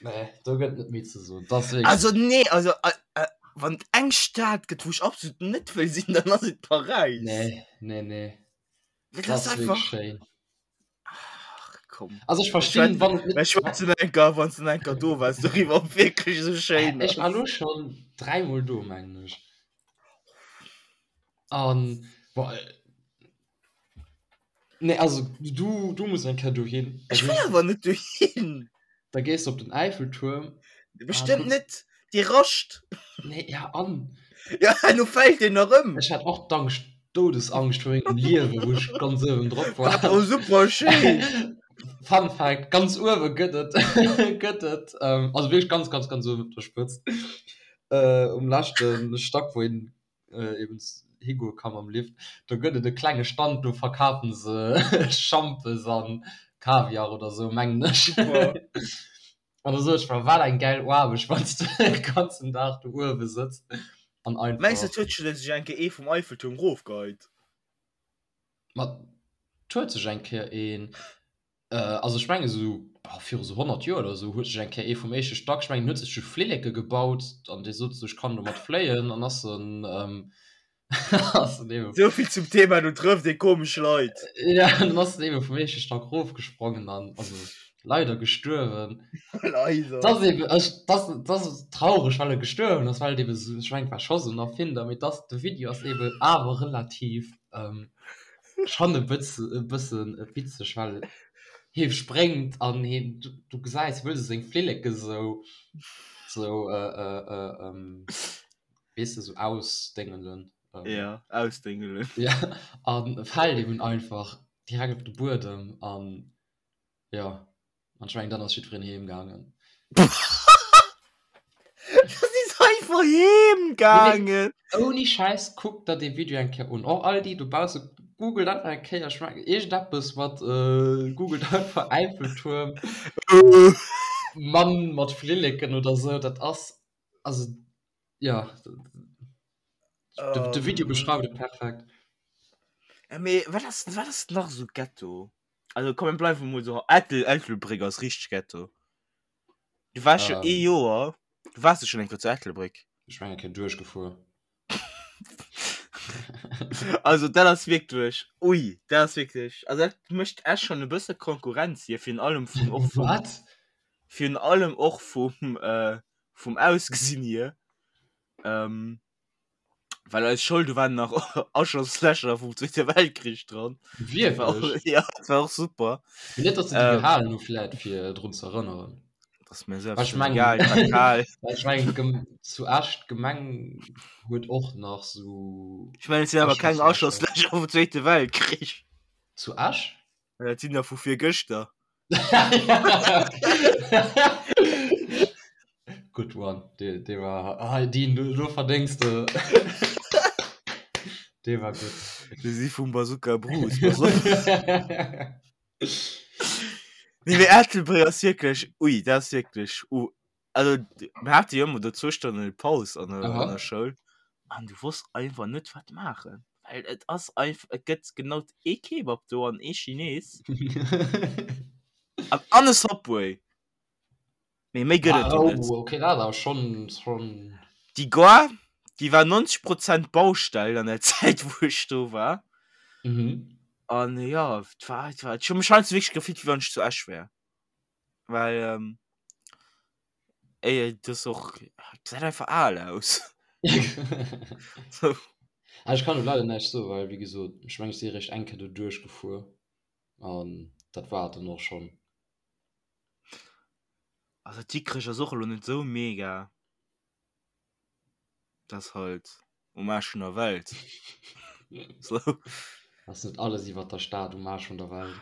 nee, do gëtt net méi ze soen. Das wirklich. Also nee, also äh, äh, wann et eng Stad gëtt, wou ech absolut net wëll sinn, dann ass et Paräis. Nee, nee, nee. Dat Das ass ist wirklich einfach. schéin. Ach, komm. Also ech verstinn, wann et net. Ech schwätzen enker, wann du enker do wars, doriwwer, ob wierklech esou schéin Ech war ass. lo schonn dräimol do, mengen ech. An, boah, Nee, also du, du muss eng Kéier dohin. Ech wëll awer net dohin. Da gees du op den Eiffeltuerm. Bestëmmt net, dee rascht. Nee, ja an? Ja, lo fält deen nach ëm. Ech hat och d'Angscht, Doudesangst vu mengem Liewen, wou ech ganz uewen drop war. War och super schéin. Fun Fact, ganz uewe gëtt et, gëtt et, also wierklech ganz, ganz, ganz uewen op der Spëtzt, um leschte Stack, wou een eben higoe ka mam Lift, do gëtt et e klenge Stand, do verkafen se Schampes an Kaviar oder sou, mengen ech. Super. An da sot ech mer, wat eng gäil Aarbecht, wann s de de ganzen Dag do uewe sëtz an Mengs de, einfach. et huet sech eng Kéier ee vum Eiffeltuerm rofgeheit? Ma 't huet sech eng Kéier een Also ech mengen esou viru sou 100 Joer oder esou huet sech eng Kéier ee vum éischte Stack, ech mengen en huet sech sou Flilleke gebaut an dee sot sou ech kann domat fléien an ass en. Ass en eben Sou vill zum Thema, do trëfft ee komesch Leit. Ja, dann ass en eben vum éischte Stack rofgesprongen an also leider gestuerwen. Leider. Das eben, ech, das, das ass traureg, well e gestuerwen ass, well et eben sou, ech mengen, et war scho sou en Erfinder, mee dass de Video ass eben awer relativ ähm, schonn e bëtze, e bëssen witzeg, well hie spréngt an hien, du, du gesäis, wëll se seng Flilleke sou, sou äh, äh, äh, ähm, weess de, sou ausdéngelen. Ähm, Ja, ausdéngelen. Ja, an fält eben einfach direkt op de Buedem an ja, an ech mengen, dann ass jiddwereen heem gaangen. Das ist einfach heem gaangen. Ouni Schäiss, kuckt der dee Video eng Kéier un. Och all déi dobausse, googelt einfach eng Kéier, ech mengen, iergendeppes mat, äh, googelt einfach Äiffeltuerm, Mann mat Flilleken oder sou, dat ass, also ja, de, de Video beschreift et perfekt. Ja, mee wat ass, wat ass nach sou Ghetto? Also komm, mir bleiwen mol sou, Ettel, Ettelbréck ass richteg Ghetto. Du waars jo ee Joer, du waars jo schonn eng Kéier zu Ettelbréck. Ech war eng Kéier duerchgefuer. Also dat ass wierklech, ui, dat ass wierklech, also dat mécht Esch schonn e bësse Konkurrenz hier, virun allem vum, och vum, Wat? virun allem och vum, vum Ausgesinn hier. Ähm, well eis Schoul, do waren nach Aschlosslächer vum Zweete Weltkrich dran. Wierklech? Ja, dat war och super. Mee net, datt se déi Ähm, gehalen hu vläit fir drun ze erënneren. Dat ass mir Well selbst ech schon mengen, egal, et war kal. well ech mengen d'Gem zu Esch d'Gemeng huet och nach sou Ech mengen, et sinn awer keng Aschlosslächer. Aschlosslächer vum Zweete Weltkrich. Zu Esch? Dat sinn der vu virgëschter. Good one. Dee, dee war, ah, Dean, du, du verdéngs de. Dee war gutt. Déi si vum Bazooka Bruce. Pass op. Nee, mee Ettelbréck ass wierklech, ui, dat ass wierklech, uh, also mir hate jo ëmmer do zwou Stonnen Paus an der, an der Schoul an du wosst einfach net wat maachen, well et ass einfach, et gëtt genau ee Kebab do an ee Chines an an e Subway. Mee méi gëtt et do net. Oh, okay, dat awer schon, schon. Déi Gare, déi war 90 Prozent Baustell an der Zäit wou ech do war. Mhm. An jo, et war, et war, ech hu mech heiansdo wierklech gefillt wéi wann ech zu Esch wär. Well ähm, ey, das ist och, gesäit einfach al aus. So. Ah, ech kann do leider näischt soen, well wéi gesot, ech mengen ech si eréischt eng Kéier do duerchgefuer an dat war et dann och schonn. Also Dikrech ass och elo net sou mega. Dat ass halt um Aarsch vun der Welt. So. Ass net alles iwwer der Stad um Aarsch vun der Welt?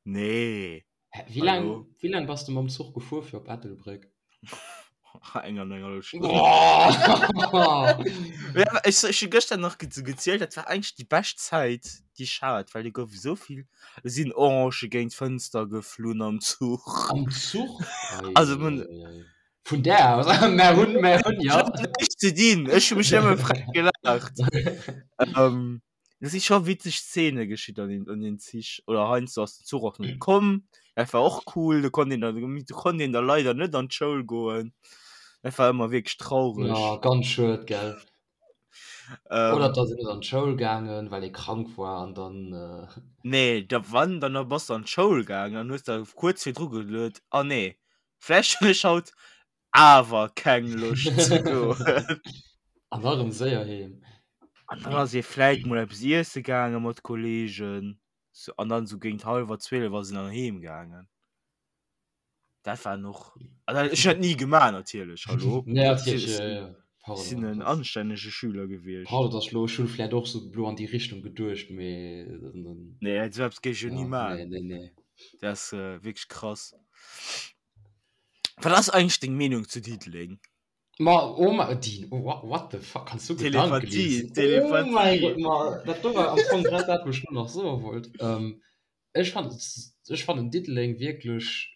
Nee. Hä, wéi laang, wéi laang bass de mam Zuch gefuer fir op Ettelbréck? Eng an eng hallef Stonn. Ja, ech, ech hu gëschter nach ge gezielt, dat war eigentlech déi bescht Zäit, déi ech hat, well do gouf esou vill, do sinn Orange géint d'Fënster geflunn am Zuch. Am Zuch? Also, man, Eieieiei. Vun där aus, mär hunn, mär hunn, Ech ja. hat näischt ze dinn, ech hu mech nëmme frech gelaacht. Ähm, do si scho witzeg Szene geschitt an den, an den Zich. Oder heiansdo ass den Zuch och net komm. Dat war och cool, do konnt een dann, do konnt een da leider net an d'Schoul goen. Dat war ëmmer wierklech traureg. Ja, ganz schued, gell. Ähm, Oder da sinn net an d'Schoul gaangen, well ee krank war an dann. Äh... Nee, da wann, dann bass du an d'Schoul gaangen an hues da kuerz virdru geluet, ah nee, Vläicht hunn ech haut awer keng Loscht ze goen. An da rëm séier heem. An dann ass ee vläit mol eppes iesse gaange mat Kolleegen. So, an dann sou géint hallwer 12 ass een dann heem gaangen. Dat war och, also ech hunn dat ni gemaach natierlech, hallo. Nee, natierlech, ja, ja. Ech sinn en anstännege Schüler gewiescht. Pardon, dass ech lo, ech hunn vläit och sou lo an déi Richtung geduecht, mee dann. Nee, esou eppes géif ech jo ni Ja, maachen. nee, nee, nee. Dat ass wierklech krass. Wat ass eigentlech deng Meenung zu Diddeleng? Ma oh ma Dean, oh, what, what the fuck, kanns du Gedanke Telepathie, liesen? Oh mäi Telepathie. Gott, ma dat do war am Fong grad dat, wou ech lo nach soe wollt. Ähm, ech fannen, ech fannen Diddeleng wierklech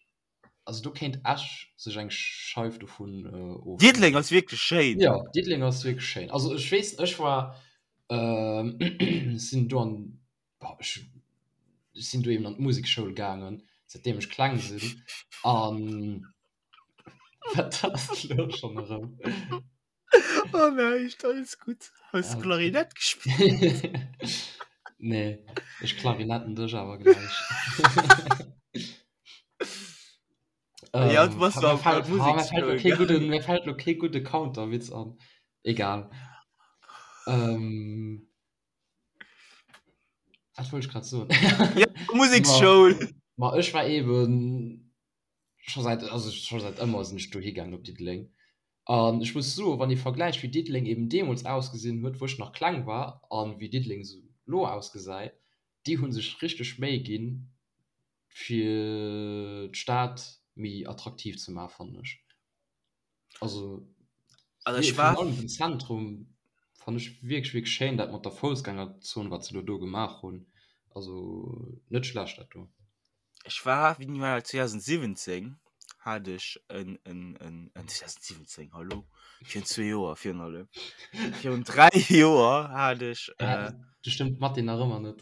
Also do kéint Esch sech eng Scheif dovun ofschneiden. Diddeleng ass wierklech schéin. Jo, Diddeleng ass wierklech schéin. Also ech weess, ech war, sinn do an, boah, ech sinn do eben an d'Musekschoul gaangen, säitdeem ech kleng sinn. An wat ass elo schonn erëm? Oh näischt, alles gutt. Hues du Klarinett gespillt? Nee, ech klarinetten dech awer gläich. Ja, du bass Ähm, do mir am fällt, Musik ah, mir fällt lo spillen, kee gell? gudden, mir fällt lo kee gudde Counterwitz an. Egal. Ähm, wat wollt ech grad soen? Ja, Museksschoul. Ma, ma ech war eben scho säit, also scho säit ëmmer sinn ech dohi gaangen op Diddeleng. An ech muss soen, wann ee vergläicht wéi Diddeleng eben deemools ausgesinn huet, wou ech nach kleng war, an wéi Diddeleng esou lo ausgesäit, déi hu sech richteg Méi ginn, fir d'Stad méi attraktiv ze maachen, fannen ech. Also, Also ech war virun allem den Zentrum fannen ech wierklech, wierklech schéin, dat mat der Foussgängerzon, wat se elo do gemaach hunn. Also net schlecht dat do. Ech war, wéini war dat, 2017 hat ech en, en, en, en 2017, hallo, virun zwee Joer, virun allem, virun dräi Joer hat ech, äh, Du stëmmt d'Mathé nach ëmmer net.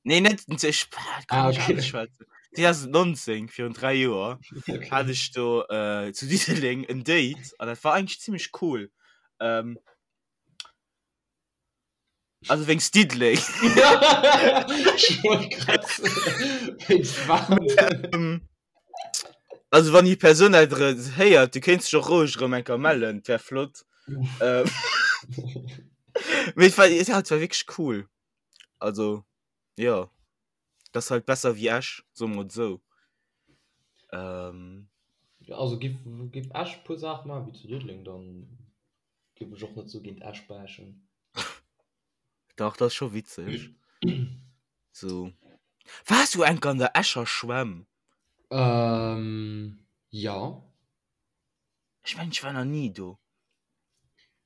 Nee, net, ech kann Ah, nicht okay. alles schwätzen. 2019, virun dräi Joer, Okay. hat ech do äh, zu Diddeleng en Date an dat war eigentlich ziemlich cool. Ähm, also wéinst Diddeleng. Ech wollt grad soen, wéinst wat? Ähm, also wann déi Persoun dat héiert, du kéints dech och roueg erëm eng Kéier mellen, dat wär flott. Ähm, mee et war, ja, et war wierklech cool. Also, jo, dat ass halt besser wéi Esch, soe mer et esou. Ähm, Ja, also giff, giff Esch e puer Saache maachen wéi zu Diddeleng, dann giff ech och net sou géint Esch bashen. Dach, dat ass scho witzeg. So. Waars du enk an der Escher Schwämm? Ähm, ja. Ech mengen, ech war nach ni do.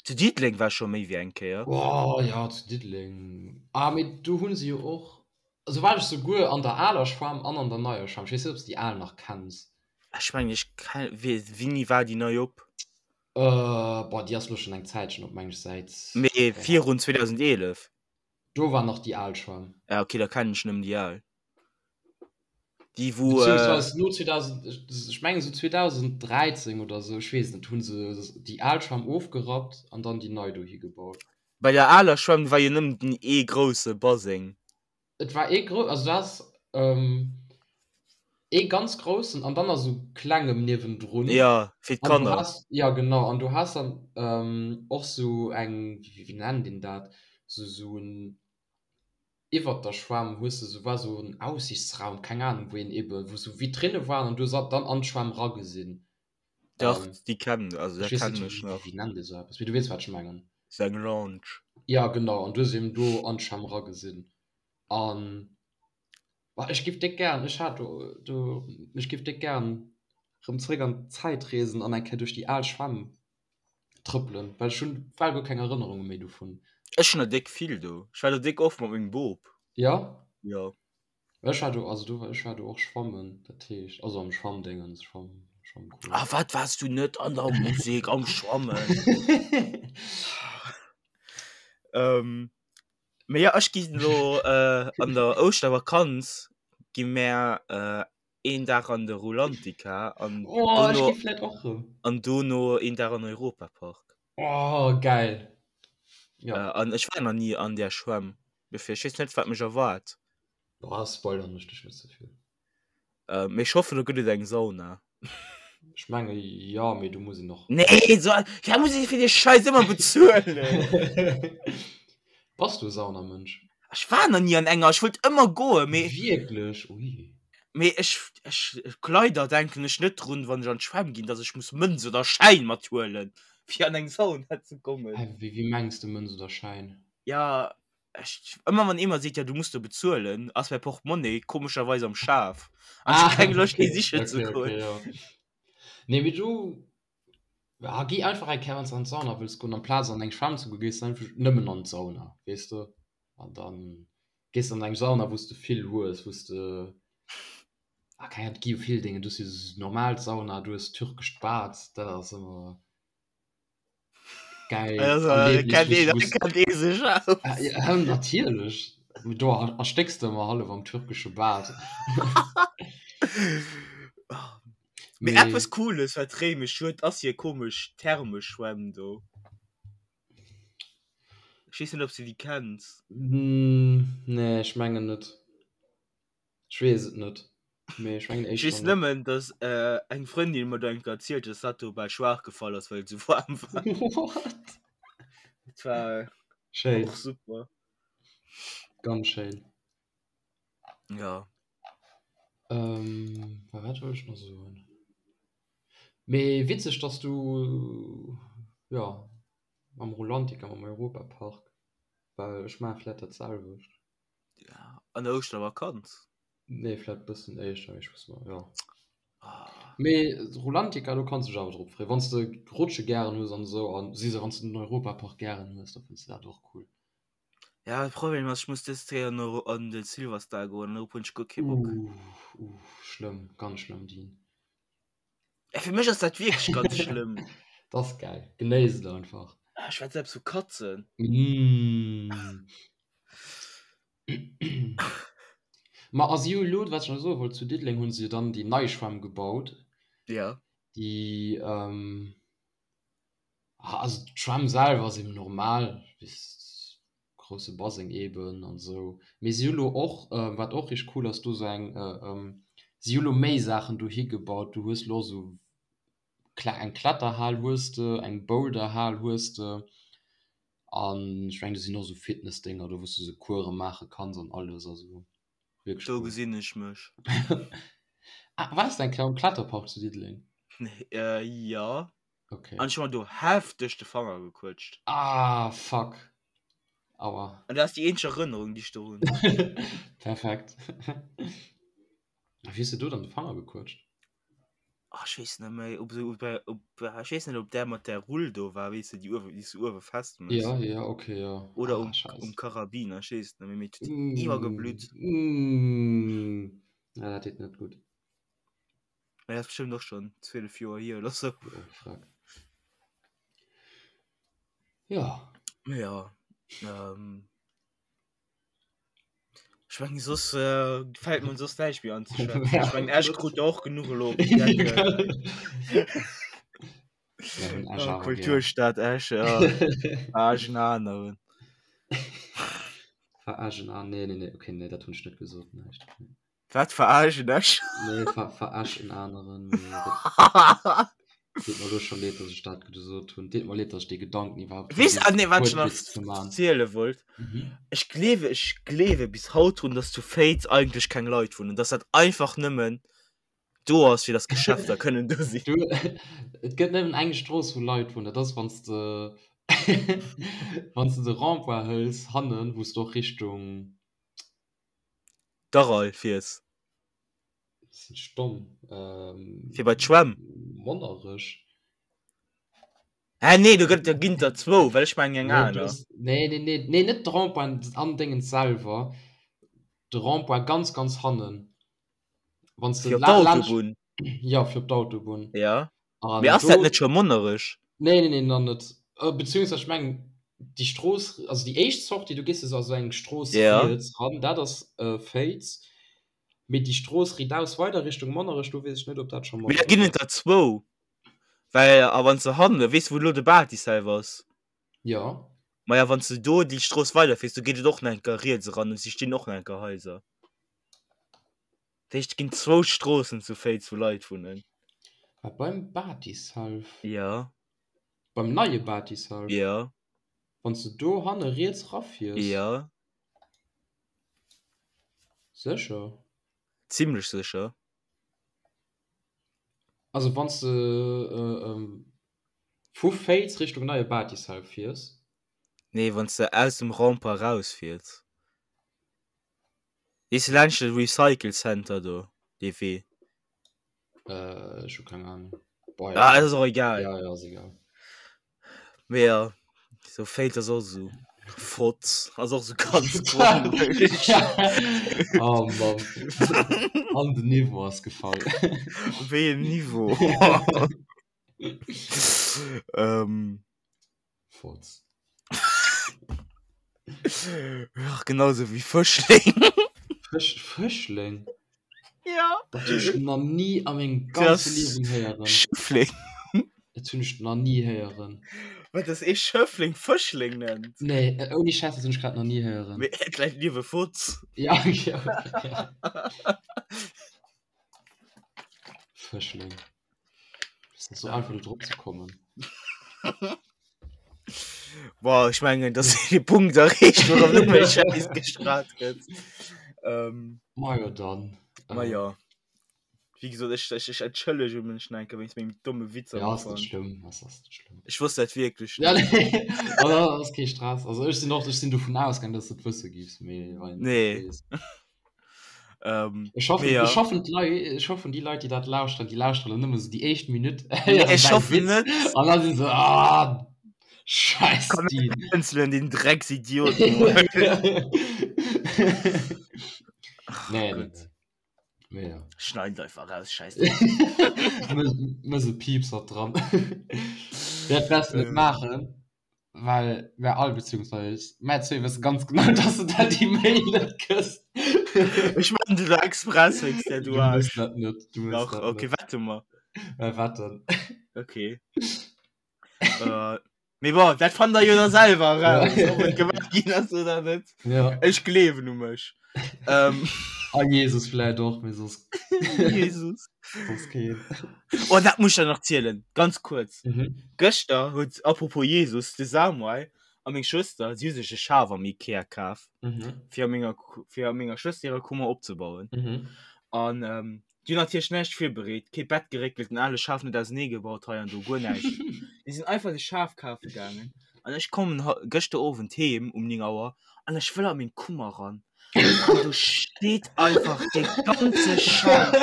Zu Diddeleng war ech scho méi wéi eng Kéier. Oh ja, zu Diddeleng. Ah, mee do hu se jo och, also war ech souguer an der aler Schwämm an an der neier Schwämm. Ech weess net, ob s de déi al nach kenns. Ech mengen, ech ken, wéini war déi nei op? Äh, boah, déi ass lo schon eng Zäitchen op, meng ech, säit. Mee virun 2011? Do war nach déi al Schwämm. Ja, okay, da kennen ech nëmmen déi al. Déi wou. Beziehungsweise no 2000, ech mengen esou 2013 oder esou, ech weess net, hu se déi al Schwämm ofgerappt an dann déi nei dohi gebaut. Bei der aler Schwämm war jo nëmmen den ee grousse Baseng. Et war ee grou, also du has ee ganz groussen an dann nach sou klengem niewendrun. Ja, fir An du d'Kanner. has, ja genau, an du has dann och sou eng, wéi nennt een dat, sou sou en, iwwert der Schwämm hues de sou, war sou en Aussichtsraum, keng Ahnung, wou een ebe, wou sou Vitrinne waren an du hues dann an d'Schwämm ragesinn. Dach, déi kennen, also Ech dat weess net, kennen ech wéi, nach. wéi nennt ee sou eppes, mee du weess wat ech mengen. Sou eng Lounge. Ja genau, an du hues eben do an d'Schwämm ragesinn an Bah, ech giff déck gären, ech hat do, do, ech giff déck gären rëm zréck an d'Zäit reesen an eng Kéier duerch déi al Schwämm trëppelen, well ech hunn bal guer keng Erënnerunge méi dovun. Ech hunn der déck vill do. Ech war do déck oft mat mengem Bop. Jo? Jo. Ech war do, also do war, ech war do och schwammen, dat heescht, also am Schwammdéngens, Schwamm, Schwammcours. Ah, wat waars du net an der Musek am Schwammen? Ähm. Mee ja, ech ginn elo äh, an der Ouschtervakanz gi mär äh, een Dag an de Rulantica an Oh, ech dono gi vläit och rëm. an dono een Dag an Europapark. Oh, geil. Ja. Äh, an ech war nach ni an där Schwämm, dofir ech weess net, wat mech erwaart. Boah, spoilern ech dech net ze vill. Äh, mee ech hoffen, do gëtt et eng Sauna. Ech menge jo, mee do muss een och. Nee, so, ja, muss ich fir de Scheiß ëmmer bezuelen. Bass du e Saunamënsch? Ech war nach ni an enger, ech wollt ëmmer goen, mee. Wierklech? Ui. Mee ech, ech, leider denken ech net drun, wann ech an d'Schwämm ginn, dass ech muss Mënz oder Schäin mathuelen, fir an eng Sauna ze kommen. Hä, wéi, wéi mengs de Mënz oder Schäin? Ja, Ech, ëmmer wann ee mer seet, ja du muss do bezuelen, ass mäi Portemonnaie komescherweis am Schaf. An ech hu keng Loscht dee sichen ze okay, goen. okay, ja. Nee, mee du, ja, gi einfach eng Kéier, wann s de an d'Sauna wëlls goen, amplaz an eng Schwämm ze goen, gees de einfach nëmmen an d'Sauna, weess de? An dann gees de an eng Sauna, wou s de vill hues, wou s de, ah, keng Ahnung, et gi jo vill Déngen, du hues jo esou normal Sauna, du hues türkescht Bad, dat ass ëmmer. Geil. Also, Erlebnis, kennt ee, wou s- kennt ee sech aus. Ah, ja, natierlech. Do erstécks de ëmmer hallef am türkesche Bad. Mee Mee eppes Cooles, wat Réimech huet, ass hir komesch Thermeschwämm do. Ech weess net, ob s de déi kenns. Nee, ech mengen net. Ech weess et net. Mee ech mengen Ech éischter weess net. nëmmen, dass eng Frëndin mer do eng Kéier erzielt huet, dass dat do bal schwaach gefall ass, well et esou waarm war. What? Dat war Schéin. och super. Ganz schéin. Ja. Ähm, wat wollt ech nach soen? Mee witzeg, dass du, jo, mam Rulantica, mam Europapark, well ech maache vläit dat selwecht. Ja, an der Ouschtervakanz? Nee, vläit bëssen éischter, mee ech weess net, jo. Mee Rulantica, do kanns du dech awer drop freeën, wann s de Rutsche gären hues an esou, an si se, wann s de den Europapark gären hues, da fënns de dat och cool. Ja, de Problem ass, ech muss dës Kéier no an de Silverstar goen, an dorop hunn ech guer kee Bock. Uff, uff, schlëmm, ganz schlëmm, Dean. Ja, fir mech ass dat wierklech ganz schlëmm. Dat ass geil, genéiss et einfach. Ah, ech schwätze eppes vu Katzen. Mm. Ma a si hu elo, wat ech nach soe wollt, zu Diddeleng hu se jo dann déi nei Schwämm gebaut. Ja. Déi, ähm, also d'Schwämm selwer ass eben normal, wéi s grousse Baseng eben an esou. Mee si hu lo och, wat och richteg cool ass, do sou eng, si hu lo méi Saachen dohi gebaut. Du hues lo sou eng Kletterhal hues de, eng Boulderhal hues de an ech mengen do sinn och sou Fitnessdénger do, wou s du sou Course maache kanns an alles. Also wierklech Do cool. gesinn ech mech. Ah, waars de eng Kéier am Kletterpark zu Diddeleng? Jo. Okay. An ech hu mer do hefteg de Fanger gequëtscht. Ah, fuck. Aua. An dat ass déi eenzeg Erënnerung, déi ech do hunn. Perfekt. A wéi hues de do dann de Fanger gequëtscht? Ah, ech weess net méi, ob se, ob, ob, ech weess net, ob där mat där Rull do war, weess de, déi uewe, déi s du uewe festméchs. Ja, ja, okay, ja. Oder Ah, um, scheiße. um Karabiner, ech weess et net méi, mee et huet iwwergeblutt. Mm. Ja, dat deet net gutt. Mä dat ass bestëmmt och schonn 12 Joer hier oder sou. Oh, fuck. Ja. Ja. Ähm, ech mengen soss äh, fällt mir soss näischt méi an ze schwätzen. Ech mengen Esch krut der och genuch elo op den Deckel. Mir hunn Esch Oh, awer gär. Kulturstad Esch, ja. Verarsch en aneren. Verarsch en an. Nee, nee, nee, okay, nee, dat hunn ech net gesot, näischt. Nee. Wat verarschen ech? Nee, ver verarsch en aneren. Deet mer elo scho leed, dass ech dat gesot hunn. Deet mer leed, dass ech dee Gedanken iwwerhaupt Weess, ah, nee, wat ech nach Wuertwitz ze man. ziele wollt. Mhm. Ech gleewe, ech gleewe bis haut drun, dass zu Féiz eigentlech keng Leit wunnen, dass dat einfach nëmmen do ass, fir dass Geschäfter kënnen do sinn. Du, et gëtt nëmmen eng Strooss, wou Leit wunnen. Dat ass, wann s de wann s de de Rond-point hëls hannen, wou s de och Richtung D'Aral fiers. Sinn ech domm? Ähm, Fir bei d'Schwämm. Monnerech. Hä, nee, do gëtt, do ginn der zwou, well ech mengen eng Nee, du aner. hues, nee, nee, nee, nee, net de Rond-point an Déngens selwer, de Rond-point ganz, ganz hannen. Wann s de Fir op la laanscht, d'Autobunn. jo, fir op d'Autobunn. Ja. Mee An ass dat do, net scho Monnerech? nee, nee, nee, nach net. Beziehungsweise ech mengen, déi Strooss, also déi éischt Sortie, du gees jo esou eng Strooss Ja. riets ran, dat ass Féiz. Mee déi Strooss riitaus weider Richtung Monnerech, do weess ech net, ob dat scho Mee da ginn Monnerech et ass. der zwou. Well, a wann s de hanne, weess de wou elo de Bâtissel ass? Jo. Maja, wann s de do déi Strooss weiderfiers, do geet et och nach eng Kéier riets eran an si stinn och nach eng Kéier Haiser. Dat heescht, et ginn zwou Stroossen zu Féiz, wou Leit wunnen. Wat, beim Bâtisshalf? Jo. Beim neie Bâtisshalf? Jo. Wann s de do hanne riets rafiers? Jo. Sécher? Zimlech sécher. Also wann s de vu Féiz Richtung neie Bâtisshalf fiers? Nee, wann s de aus dem Rempart rausfiers. Weess de laanscht de Recycle Center do, dee Wee? Äh, ech hu keng Ahnung. Boah, Ah, ja. ass och egal. Ja, ja, ass egal. Mee ja, sou Féiz ass och sou Fotz, ass och sou ganz komesch. Oh Mann. An den Niveau ass gefall. Wéi en Niveau? ähm. Fotz. Ach, genauso wéi Fëschling. Fësch, Fëschling? Ja. Dat hunn ech nach ni a mengem ganze Liewen héieren. Schëffling. Dat hunn ech nach ni héieren. Wat dass ee Schëffleng Fëschleng nennt? Nee, äh, ouni Schäiss, dat hunn ech grad nach ni héieren. Mee et läit liewe Fotz. Ja, ja, ja. Fëschleng. Ass net sou einfach do drop ze kommen. Boah, ech mengen, dass de Punkt erreecht, wou erëm net méi Schäiss gestrahlt gëtt. Ähm, Ma jo dann. ma jo. Wéi gesot, ech, ech, ech entschëllege mech nach eng Kéier wéinst mengem domme Witz am Ja, ass net Ufank. schlëmm, ass, ass net schlëmm. Ech wosst dat wierklech Ja, net. nee, also, ass kee Stress. Also ech sinn och, ech sinn dovun ausgaang, dass du et wësse giffs, mee wann een et net Nee. weess. Ähm, Ech hoffen, mee ja. ech hoffen d'Lei, ech hoffen déi Leit, déi dat lauschteren, déi lauschteren nëmme sou déi éischt Minutt, Nee, héieren ech däi hoffen Witz net. an da si se, ah, scheiß Komm, die. Canceln den Drecksidiot. Nee, Nee, nee, Gott. nee. Mee ja. Schneid einfach raus, scheiß Mëss e Piepser dran. Dat wäers du net maachen, well mär all, beziehungsweise mär zwee wësse ganz genau, dass du dat déi Mail net kriss. Ech maachen dat elo express wéinst där, du Du mëss Aarsch. dat net, du mëss Dach, dat okay, net. wette mer. Mä wetten. Okay. Äh, Mee bon, dat fannt der jo da selwer raus, ob et gemaach ginn ass oder net. Ja. Ech gleewen u mech. Ähm. A Jesus vläit och, mee soss. Jesus. Soss keen. Oh, dat muss ech der nach zielen, ganz kuerz. Mhm. Gëschter huet, apropos Jesus, de Samuel a meng Schwëster, si hu sech e Schaf am Ikea kaf, Mhm. fir a menger, fir a menger Schwëster hirer Kummer opzebauen. Mhm. An ähm, Déi hunn natierlech näischt virbereet, kee Bett geréckelt, den ale Schaf net ausenee gebaut, hei an do, guer näischt. Déi sinn einfach de Schaf kafe gaangen an ech kommen gëschter Owend heem um 9 Auer an ech wëll a meng Kummer ran an do steet einfach dee ganze Schaf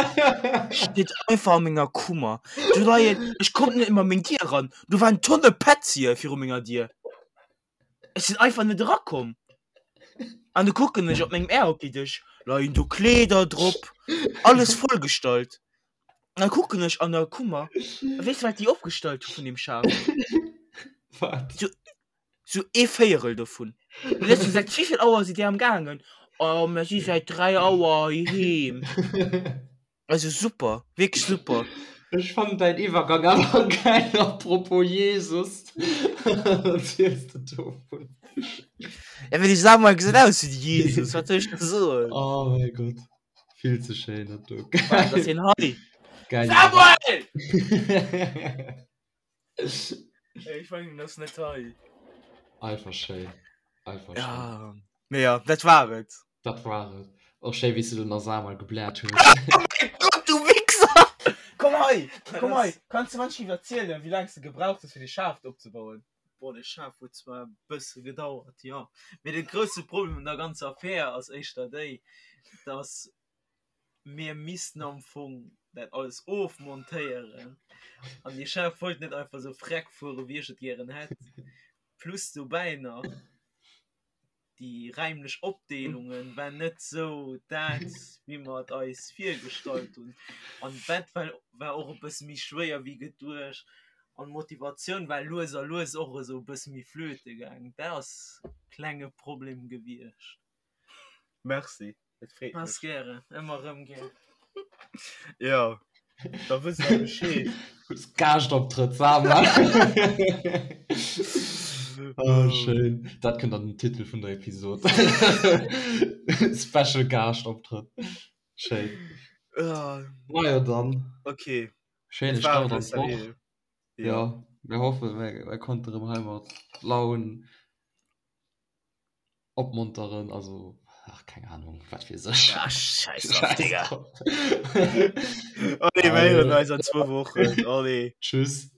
steet einfach a menger Kummer. Do leien, ech konnt net emol a meng Dier ran, do waren Tonne Petzie viru menger Dier. Ech sinn einfach net erakomm. An du kucken ech op mengem Airhockey-Dësch, leien do Kleeder drop, alles vollgestallt. An da kucken ech an der Kummer, a weess de wat déi opgestallt hu vun deem Schaf? Wat? Sou, sou ee Véierel dovun. An ech sou, säit wéivill Auer sidd Dir am gaangen? Oh, mir si säit 3 Auer heiheem. Also super, wierklech super. Ech fannen däin Iwwergang awer geil, apropos Jesus. Wat erziels de dovun? Ja, well de Samuel gesäit aus wéi de Jesus, wat soll ech da soen? Oh mäi Gott, vill ze schéin dat do. Wat ass hien hei? Geil. Samuel! Ech mengen, en ass net hei. Einfach schéin, einfach schéin. Ja, mee ja, dat war et. Dat war et. Och schéi wéi s du den Samuel gebläert hues. Oh mein Gott, du Wichser! Komm hei, komm hei! Kanns du manchmal erzielen, wéi laang s du gebraucht hues, fir de Schaf opzebauen? Boah, de Schaf huet zwar e bësse gedauert, jo. Mee de grousse Problem un der ganzer Affär ass éischter déi, dass mir missten am Fong dat alles ofmontéieren an de Chef wollt net einfach sou freck fuere wéi ech et gären hätt. Plus dobäi nach déi räimlech Opdeelungen war net sou dat wéi mer et eis virgestallt hunn an d'Bett war war och e bësse méi schwéier wéi geduecht an d'Motivatioun war lues a lues och esou e bësse méi flöte gaang. Dat ass klenge Problem gewiescht. Merci. Et freet Ass mech. gären, ëmmer rëm gär. Ja, da wësst der Bescheed. Hues Gaaschtoptrëtt, Samuel. Oh, schéin. Dat kënnt an den Titel vun der Episod. Special Gaaschtoptrëtt. Schéin. Ah, Majo dann. okay. Schéine Et war Start et an d'Woch. sérieux. Ja, Ja. mir hoffen, mir, mir konnte rëm hei mat Laun Opmonteren, also ach keng Ahnung, wat weess ech. Ah, scheiß drauf, Scheiß Digga. drauf. Allez, mir héieren Allez. eis an zwou Wochen. Allez. Tschüss.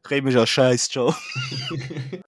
Réimech a Schäiss, ciao.